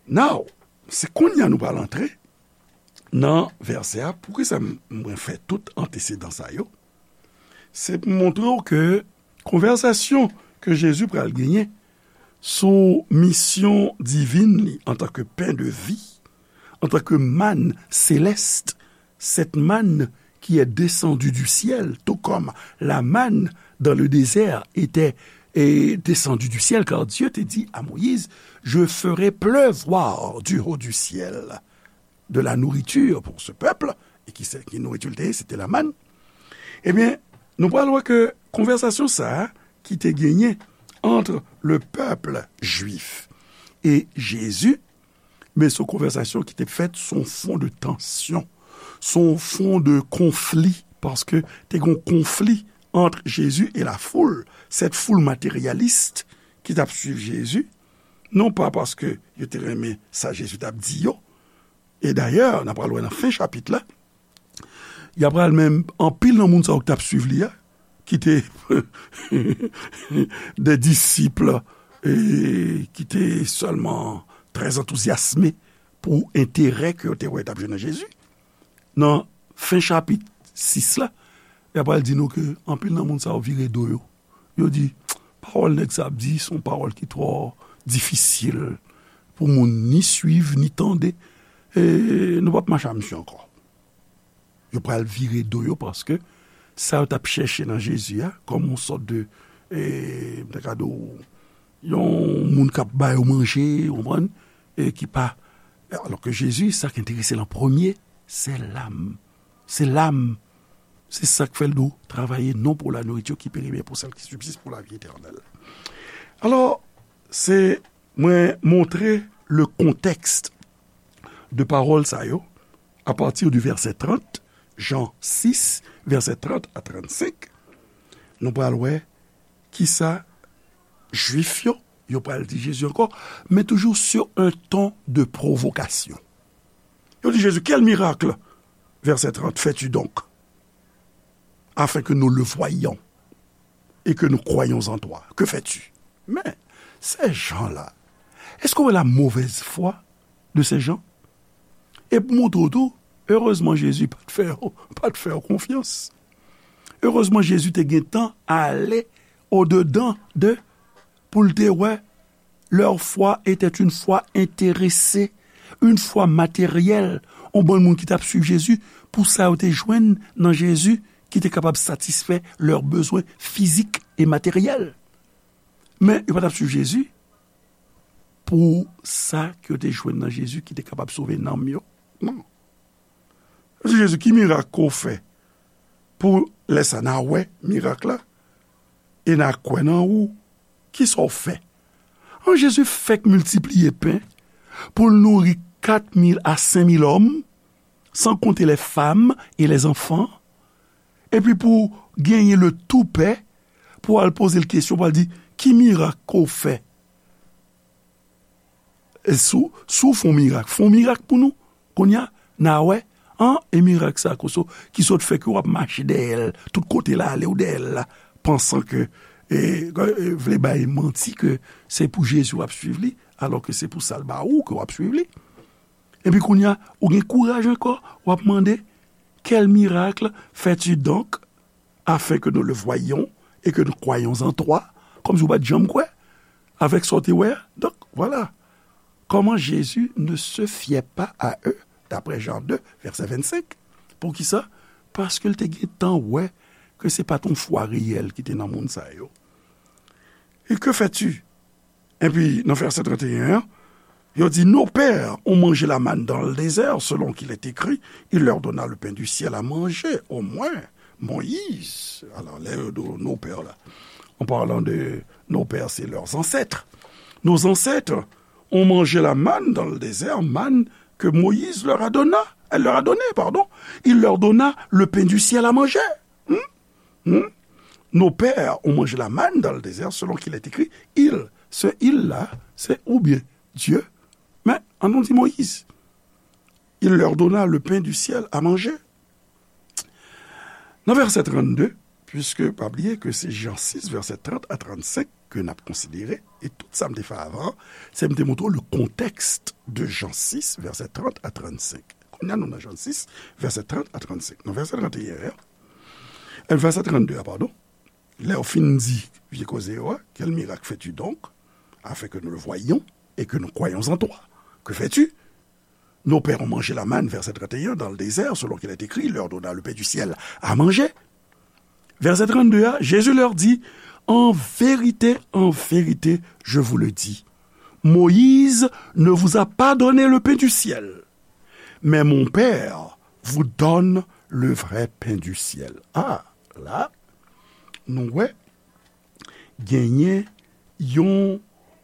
Now, se kounye a nou pral antre nan vèsè a. Poukisa m, mwen fè tout antesedan sa yo? Se pou montre w ke konvèsasyon ke Jezi pral genyen sou misyon divin li antanke pen de vi, antanke mann selès, cette manne qui est descendue du ciel, tout comme la manne dans le désert était, eh, descendue du ciel, car Dieu te dit à Moïse, je ferai pleuvoir du haut du ciel de la nourriture pour ce peuple, e ki se, ki nouriti l te ye, se te la mann. Ebyen, nou pral wè ke konvèsasyon sa a ki te genyen ant le pèp jwif e Jezi, men se yon konvèsasyon ki te fèt sou yon fon de tansyon, sou yon fon de konfli, paske te gen yon konfli ant Jezi e lafoul, cette foule matérialiste ki t ap swiv Jezi, non pa paske yo te renmen sa Jezi t ap di yo, e dayè, n a pral wè nan fen chapit la, y a pral menm anpil nan moun sa yo ki t ap swiv li a, ki te de disip, e ki te sèlman trè antouzyasme pou enterè ke yo te wè t ap jwenn nan Jezi. Nan fen chapit sis la, y a pral di nou ke anpil nan moun sa yo vire do yo. Yo di, pawòl nèg sa ap di, se yon pawòl ki twò difisil pou moun ni swiv, ni tande. E nou p ap mache a misye ankò. Yo pral vire do yo paske sa yo t ap chèche nan Jezi a, kòm yon sòt de, e, m ta ka di w, yon moun k ap ba yo manje, ou konprann, e ki pa, alò ke Jezi, sa k enterese l an premye, se lam. Se lam. Se sa k fè l di w, travaillez non pour la nourriture qui périt, mais pour celle qui subsiste pour la vie éternelle. Alò, se mwen montre le contexte de pawòl sa yo, à partir du verset trente, Jan sis, vèsè trant a trannsenk, nou pral wè kisa Jwif yo, yo pral di Jezi ankò, men toujou sur un ton de provocation. Yo di Jezi, quel miracle, verset trente, fais-tu donc, afin que nous le voyions et que nous croyions en toi? Que fais-tu? Men, ces gens-là, èske w wè la mauvaise foi de ces gens? E pou montre w tou, erezman Jezi pa t fè, pa t fè yo konfyans. Erezman Jezi te gentan ale odedan de, pou l te wè, leur foi était une foi intéressée, une foi matérielle. Yon bann moun ki t ap swiv Jezi, pou sa yo te jwenn nan Jezi ki te kapab satisfè lè bezwen fizik e materyèl. Men yo pa t ap swiv Jezi pou sa ke yo te jwenn nan Jezi ki te kapab sove nanm yo. Non. Yo di Jezi, ki mirak ke w fè pou lè sa n a wè mirak la e n a kwè nan ou? Kisa w fè? An, Jezi fèk miltipliye pen pou l nouri kat mil a senk mil òm, san konte les femmes et les enfants, epi pou genyen le toupè pou al poze l kesyon, pou al di, ki mirak ke w fè? E si w, si w fè yon mirak, fè yon mirak pou nou. Kounye a, n a wè, an, e mirak sa, koso, ki sot fè ke w ap mache dèyè l, tout kote l ale w dèyè l la, pansan ke, e, e, vle bay manti ke se pou Jezi w ap swiv li, alò ke se pou sa l ba ou ke w ap swiv li. Epi kounye a, ou gen kouraj ankò, w ap mande, quel miracle fais-tu donc, afin que nous le voyions et que nous croyions en toi? Kòmsi w pa t janm kwè avèk sa w te wè a. Donk, vwala. Comment Jésus ne se fiait pas à eux, d'après Jean deux, verset vingt-cinq. Poukisa? Paske l te gentan wè ke se pa t yon fwa reyèl ki te nan moun sa yo. Et que fais-tu? Epi, nan vèsè trannteyen an, yo di, nos pères ont mangé la manne dans le désert, selon qu'il est écrit, il leur donna le pain du ciel à manger. Au moins, Moïse, alors, lè yo di nos pères la, en parlant de nos pères, c'est leurs ancêtres. Nos ancêtres ont mangé la manne dans le désert, manne que Moïse leur a donna, elle leur a donné, pardon. Il leur donna le pain du ciel à manger. Hmm? Hmm? Nos pères ont mangé la manne dans le désert, selon qu'il est écrit, il, ce il-là, c'est ou bien Dieu, mais an nou di Moïse. Il leur donna le pain du ciel à manger. Nan vèsè trannde, puiske pa bliye ke se Jan sis, vèsè trant a trannsenk ke n ap konsidere, e tout sa m te fè avan, se m te montre w le contexte de Jan sis, vèsè trant a trannsenk. Kounye a nou nan Jan sis, vèsè trant a trannsenk. Nan vèsè tranteyen an, e vèsè trannde a, padon, lè yo fin di vye koze yo a, quel miracle fais-tu donc, afin que nous le voyions et que nous croyions en toi? Que fais-tu? Nos pères ont mangé la manne, verset trente et un, dans le désert, selon qu'il est écrit, il leur donna le pain du ciel à manger. Verset trente-deux, hein, Jésus leur dit, en vérité, en vérité, je vous le dis, Moïse ne vous a pas donné le pain du ciel, mais mon Père vous donne le vrai pain du ciel. Ah, la, nou wè, genyen yon,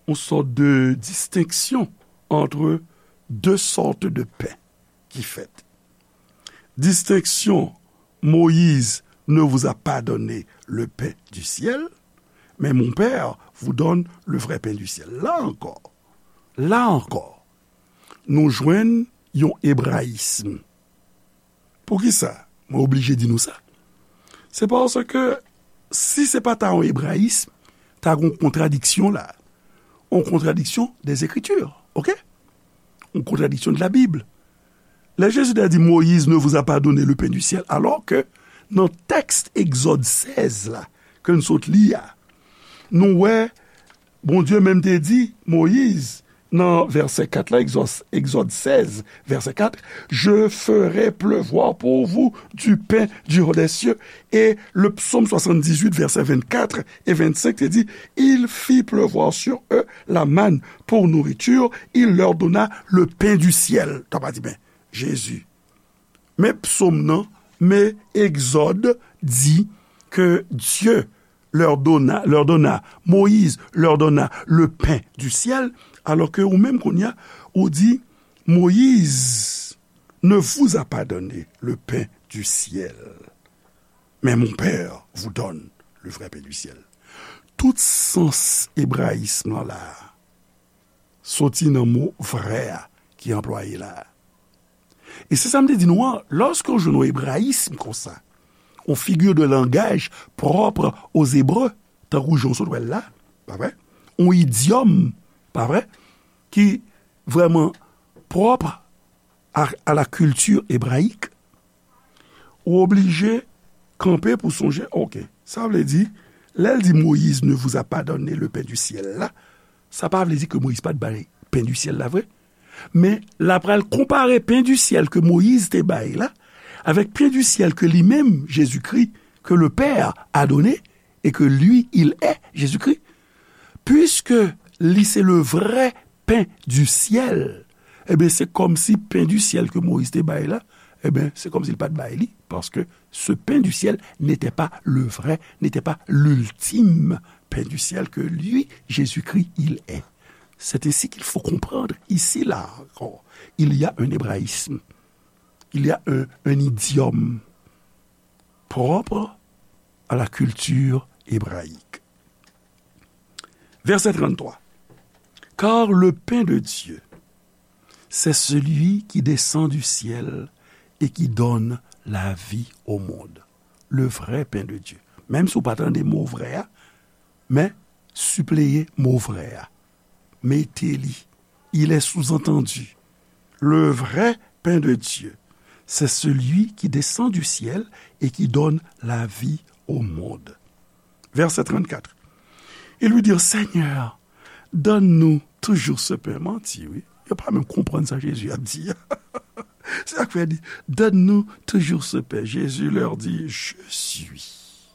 yon sòt de distenksyon entre deux sortes de pain ki fèt. Distenksyon, Moïse ne vous a pas donné le pain du ciel, mais mon Père vous donne le vrai pain du ciel. La ankò, la ankò, nou jwenn yon ebrayism. Poukisa mwen oblije di nou sa? Se paske si se pa ta yon ebrayism, ta gen yon kontradiksyon la. Yon kontradiksyon des Écritures, oke? Yon kontradiksyon de la Bible. Lè Jezi te di, Moïse ne vous a pas donné le pain du ciel, alors que nan tèks Egzòd sèz la, ke n sot li a, nou wè Bondye menm te di Moyiz nan vèsè kat la, Egzòd, Egzòd sèz, vèsè kat, je ferai pleuvoir pour vous du pain du haut des cieux. Et le psaume soixante-dix-huit, verset vingt-quatre et vingt-cinq, te di, il fit pleuvoir sur eux la manne pour nourriture, il leur donna le pain du ciel. Sa pa di, ben, Jezi. Men psaume nan, men Egzòd di que Dieu leur donna, leur donna, Moïse leur donna le pain du ciel, alors que ou menm kounye a, ou di, Moïse ne vous a pas donné le pain du ciel, mais mon Père vous donne le vrai pain du ciel. Tout sans ebrayism lan la, soti nan mo vrè a ki anplwaye la. E se sa m te di nou an, lòske w jwenn yon ebrayism konsa, yon figure de langage propre aux Hébreux, tankou jan w sot wè l la, pa vre? Yon idyòm, pa vre? Ki vrèman pwòp a, à la culture hébraïque, ou oblije kanpe pou sonje, oke, sa vle di, lè l di Moïse ne vous a pas donné le pain du ciel la, sa pa vle di ke Moyiz pa t bay pen di syèl la vre. Men, l ap pral konpare pen di syèl ke Moyiz te bay la, avèk pen di syèl ke li menm, Jezikri, que le Père a donné, et que lui, il est Jésus-Christ, puisque li se le vrai pain du ciel, ebyen, se kòmsi pen di syèl ke Moyiz te bay la, ebyen, se kòmsi l pa t bay li, paske ce pain du ciel n'était pas le vrai, n'était pas l'ultime pain du ciel que lui, Jésus-Christ, il est. C'est ainsi qu'il faut comprendre ici, là encore. Il y a un hébraïsme, il y a un, un idiome propre à la culture hébraïque. Verset trente-trois. Car le pain de Dieu, c'est celui qui descend du ciel et qui donne la vie au monde. Le vrai pain de Dieu. Menm si w pa tande mo vrè a, men sipleye mo vrè a. Mete li. Il est sous-entendu. Le vrai pain de Dieu, c'est celui qui descend du ciel et qui donne la vie au monde. Verset trente-quatre. Ils lui dirent, Seigneur, donne-nous toujours ce pain. Manti, wi. Yo pa menm konprann sa Jezi ap di. Se sa k fè di, donne-nous toujours ce pain. Jésus leur dit, je suis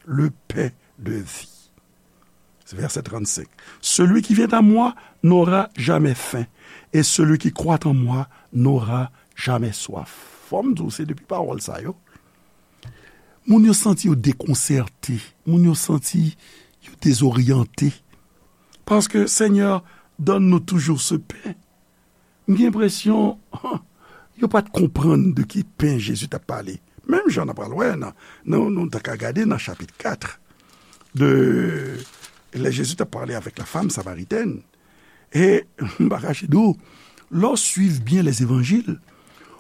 le pain de vie. Verset trente-cinq. Celui qui vient à moi n'aura jamais faim, et celui qui croit en moi n'aura jamais soif. Fò m di w, se depi pawòl sa yo, moun yo santi yo dekonsète, moun yo santi yo dezoryante. Paske Senyè donne-nous toujours ce pain. M gen enpresyon, yo pa t konprann de ki pen Jezi t ap pale. Menm jan n ap pral wè nan, nan, nou ta ka gade nan chapit kat, de, lè Jezi t ap pale avèk la femme samaritaine. E m pa kache di w, lè w swiv byen les évangiles,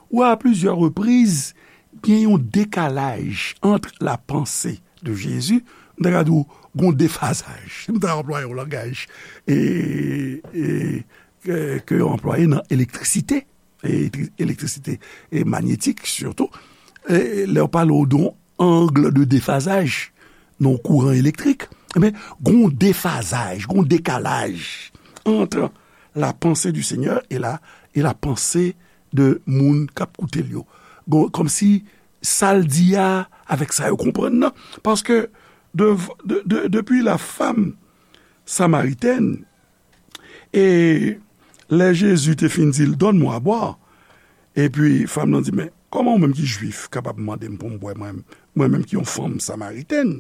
ou a plusieurs reprises, gen yon dekalaj ant la pensée de Jésus, m ta ka di w, gon defazaj. M ta anplwaye yon langaj, e, e, ke, ke yo anplwaye nan elektrisite, e elektri-, elektrisite e manyetik sitou, e lè yo pale w de yon angle de defazaj nan kouran elektrik, ebyen, gon defazaj, gon dekalaj entre la pensée du Seigneur et la, et la pensée de moun k ap koute l yo. Gon, kòmsi sa l di a avèk sa yo konprann nan. Paske de, de, de, depi la femme samaritaine, e lè Jezi te fin di l, donne-moi à boire, epi fanm nan di, men kòman ou menm ki jwif kapab mande m pou m bwè, mwen, mwen menm ki yon fanm samaritèn?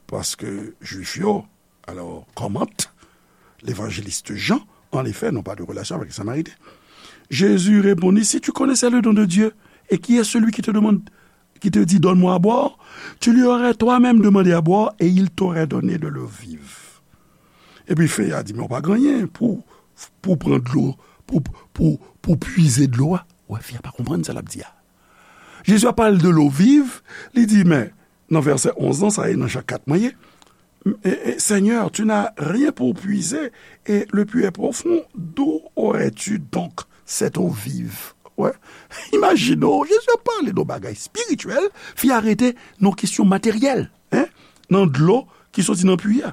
Paske jwif yo, alors, commente l'évangéliste Jean, en effet, n'ont pas de relation avec les Samaritains. Jésus répondit, si tu connaissais le don de Dieu, et qui est celui qui te demande, qui te dit, donne-moi à boire, tu lui aurais toi-même demandé à boire, et il t'aurait donné de l'eau vive. Epi fi a di, men ou pa gen anyen pou, pou pran dlo, pou, pou, pou pwize dlo a. Ou wè, fi a pa konprann sa l ap di a. Jezi ap pale de l'eau vive, li di, men, nan vèsè onz lan, sa e nan Jan kat mwen ye. Et, et, Seigneur, tu n'as rien pour puiser, et le puits est profond, d'où aurais-tu donc cette eau vive? Wè, imajine w, Jezi ap pale de yon bagay espirityèl, fi a rete nan kesyon materyèl, en, nan dlo ki soti nan pwi a.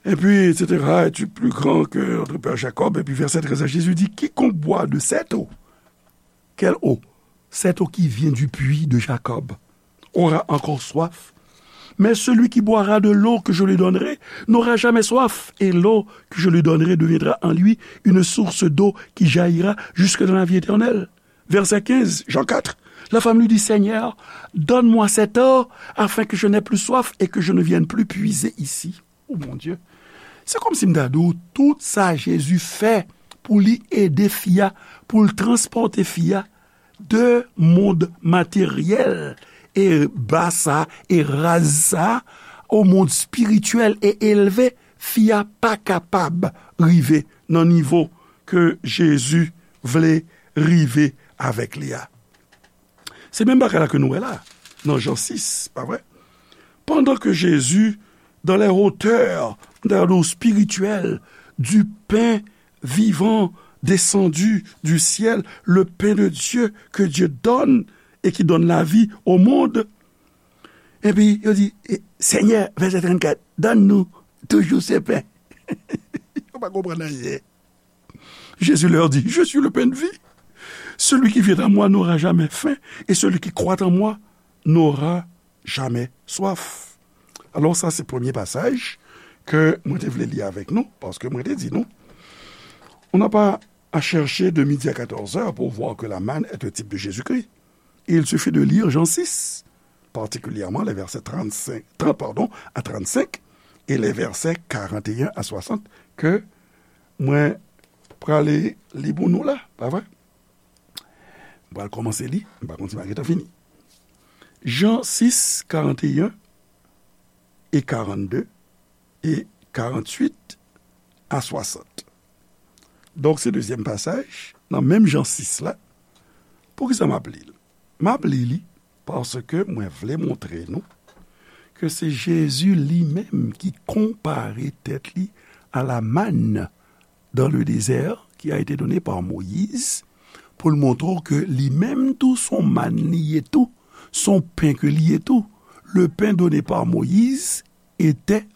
Et puis, et cetera, es-tu plus grand que notre père Jacob? Et puis, verset treize, Jésus dit, quiconque boit de cette eau, quelle eau? Cette eau qui vient du puits de Jacob aura encore soif. Mais celui qui boira de l'eau que je lui donnerai n'aura jamais soif, et l'eau que je lui donnerai deviendra en lui une source d'eau qui jaillira jusque dans la vie éternelle. Verset quinze, Jean quatre. La femme lui dit, Seigneur, donne-moi cette eau afin que je n'aie plus soif et que je ne vienne plus puiser ici. Oh mon Dieu. Se kòmsi m ta di w, tout sa Jezi fè pou li ede fi a, pou l transpòte fi a de mond materyèl e ba sa e raz sa o mond espirityèl e elve, fi a pa kapab rive nan nivo ke Jezi vle rive avèk li a. Se menm bagay la ke nou wè la, nan Jan sis, pa vre? Pendant que Jésus, dans les hauteurs, dans l'eau spirituelle, du pain vivant descendu du ciel, le pain de Dieu que Dieu donne et qui donne la vie au monde. Epi yo di, eh, Seigneur, verset trente-quatre, donne-nous toujours ce pain. Yo pa konprann anyen. Jésus leur dit, je suis le pain de vie. Celui qui vient à moi n'aura jamais faim, et celui qui croit en moi n'aura jamais soif. Alò, sa se premye pasaj ke mwen te vle li avèk nou, paske mwen te di nou, on n'a pas à chercher de midi à quatorze heures pour voir que la manne est un type de Jésus-Christ. Il suffit de lire Jean six, particulièrement les versets trente-cinq, trente, pardon, à trente-cinq et les versets quarante et un à soixante, ke mwen prale li pou nou la, pa vre? Mwen pral kòmanse li, m pa konn si m a gentan fini. Jan sis, karant e en e karannde e karanntuit a swasant. Donk, se dezyèm pasaj nan menm Jan sis la. Poukisa m ap li l? M ap li li paske mwen vle montre nou ke se Jezi li menm ki konpare tèt li à la manne dans le désert qui a été donnée par Moïse, pou l montre w ke li menm tou se yon mann li ye tou, se yon pen ke li ye tou. Le pain donné par Moïse était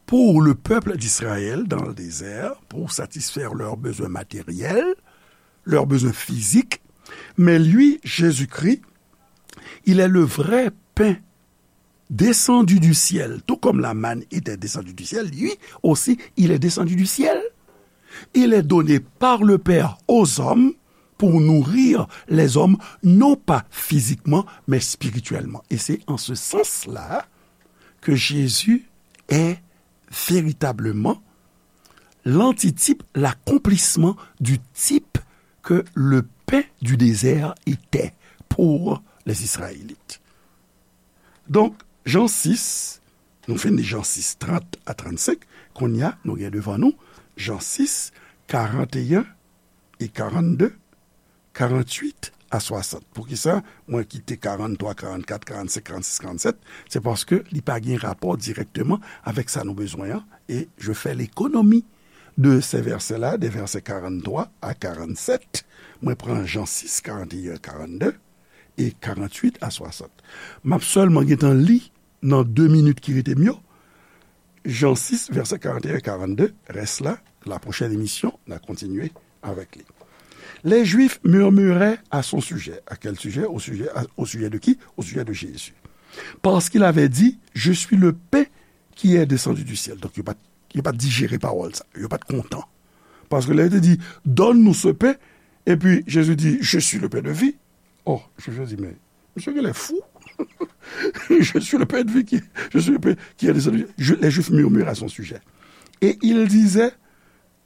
pour le peuple d'Israël dans le désert, pour satisfaire leurs besoins matériels, leurs besoins physiques. Mais lui, Jésus-Christ, il est le vrai pain descendu du ciel. Tout comme la manne était descendue du ciel, lui aussi, il est descendu du ciel. Il est donné par le Père aux hommes pour nourrir les hommes, non pas physiquement, mais spirituellement. Et c'est en ce sens-là que Jésus est véritablement l'antitype, l'accomplissement du type que le pain du désert était pour les Israélites. Donk, Jan sis, nou fin li Jan sis, trant a trannsenk, kounye a, nou gen devan nou Jan sis, karanteyen e karannde, karannwit a swasant. Poukisa mwen kite karanntwa, karannkat, karannsenk, karannsis, karannsèt? Se paske li pa gen rapò dirèkteman avèk sa nou bezwen an, e je fais l'économie de ces versets-là, des versets quarante-trois à quarante-sept. Mwen pran Jan sis, karanteyen, karannde, e karannwit a swasant. M ap sèlman gentan li nan de minit ki rete m yo, Jan sis, vèsè karanteyen e karannde, rès la, la pwochèn emisyon, n a kontinye avèk li. Les Juifs murmuraient à son sujet. À quel sujet? Au sujet, à- au sujet de qui? Au sujet de Jésus. Parce qu'il avait dit, je suis le pain qui est descendu du ciel. Donk, yo pa t, yo pa t dijere pawòl sa. Yo pa t kontan. Paske lè yo te di, donne-nous ce pain, epi Jezi di, je suis le pain de vie. Oh, Jezi di, men, misye genlè fou. Je suis le pain de vie qui, je suis le pain qui est descendu. Je- les Juifs murmurent à son sujet. Et ils disaient,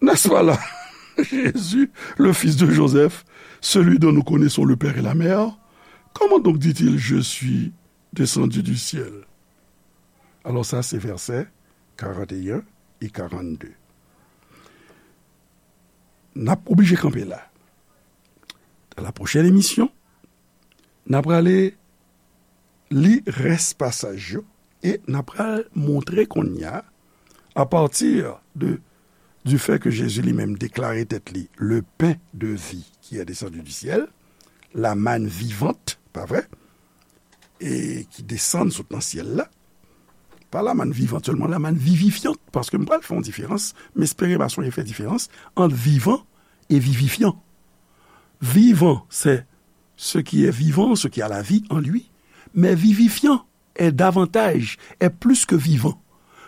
n'est-ce pas là Jésus, le fils de Joseph, celui dont nous connaissons le père et la mère? Comment donc dit-il, je suis descendu du ciel? Alors ça, c'est versets quarante et un et quarante-deux. N ap oblije kanpe la. Dans la prochaine émission, n ap prale li rès pasaj yo e n ap pral montre kounye a, à partir de, du fait que Jésus lui-même déclarait tèt li le pain de vie qui est descendu du ciel, la manne vivante, pa vre, e ki desann sot nan syèl la, pa la manne vivante sèlman, la manne vivifiante, paske m pral fè yon diferans, m espere m a sonje fè diferans ant vivan e vivifyan. Vivant, c'est ce qui est vivant, ce qui a la vie en lui, mais vivifiant est davantage, est plus que vivant.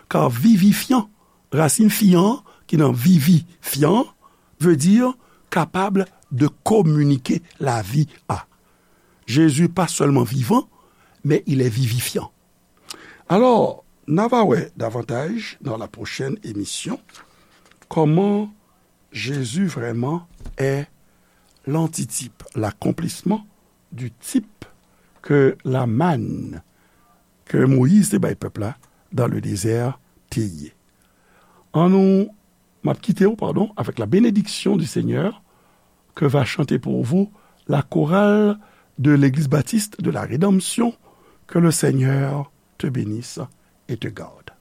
Car vivifiant, rasin fian, ki nan vivi, fian, veut dire capable de communiquer la vie à. Jésus, pas seulement vivant, mais il est vivifiant. Alors, n a va wè davantaj dans la prochaine émission comment Jésus vraiment est l'antitype, l'accomplissement du type que la manne que Moïse te bay pèp la dans le désert te ye. An nou, m ap kite w, pardon, avec la bénédiction du Seigneur que va chanter pour vous la chorale de l'Église baptiste de la Rédemption. Que le Seigneur te bénisse et te garde.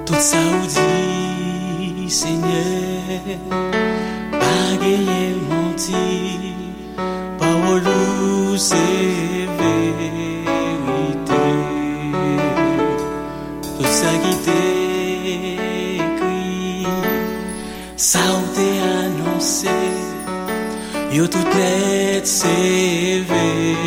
Tout sa ou di, Senyè, pa genyen manti. Pawòl ou se verite. Tout sa ki te ekri, sa ou te anonse. Yo tout nèt seve.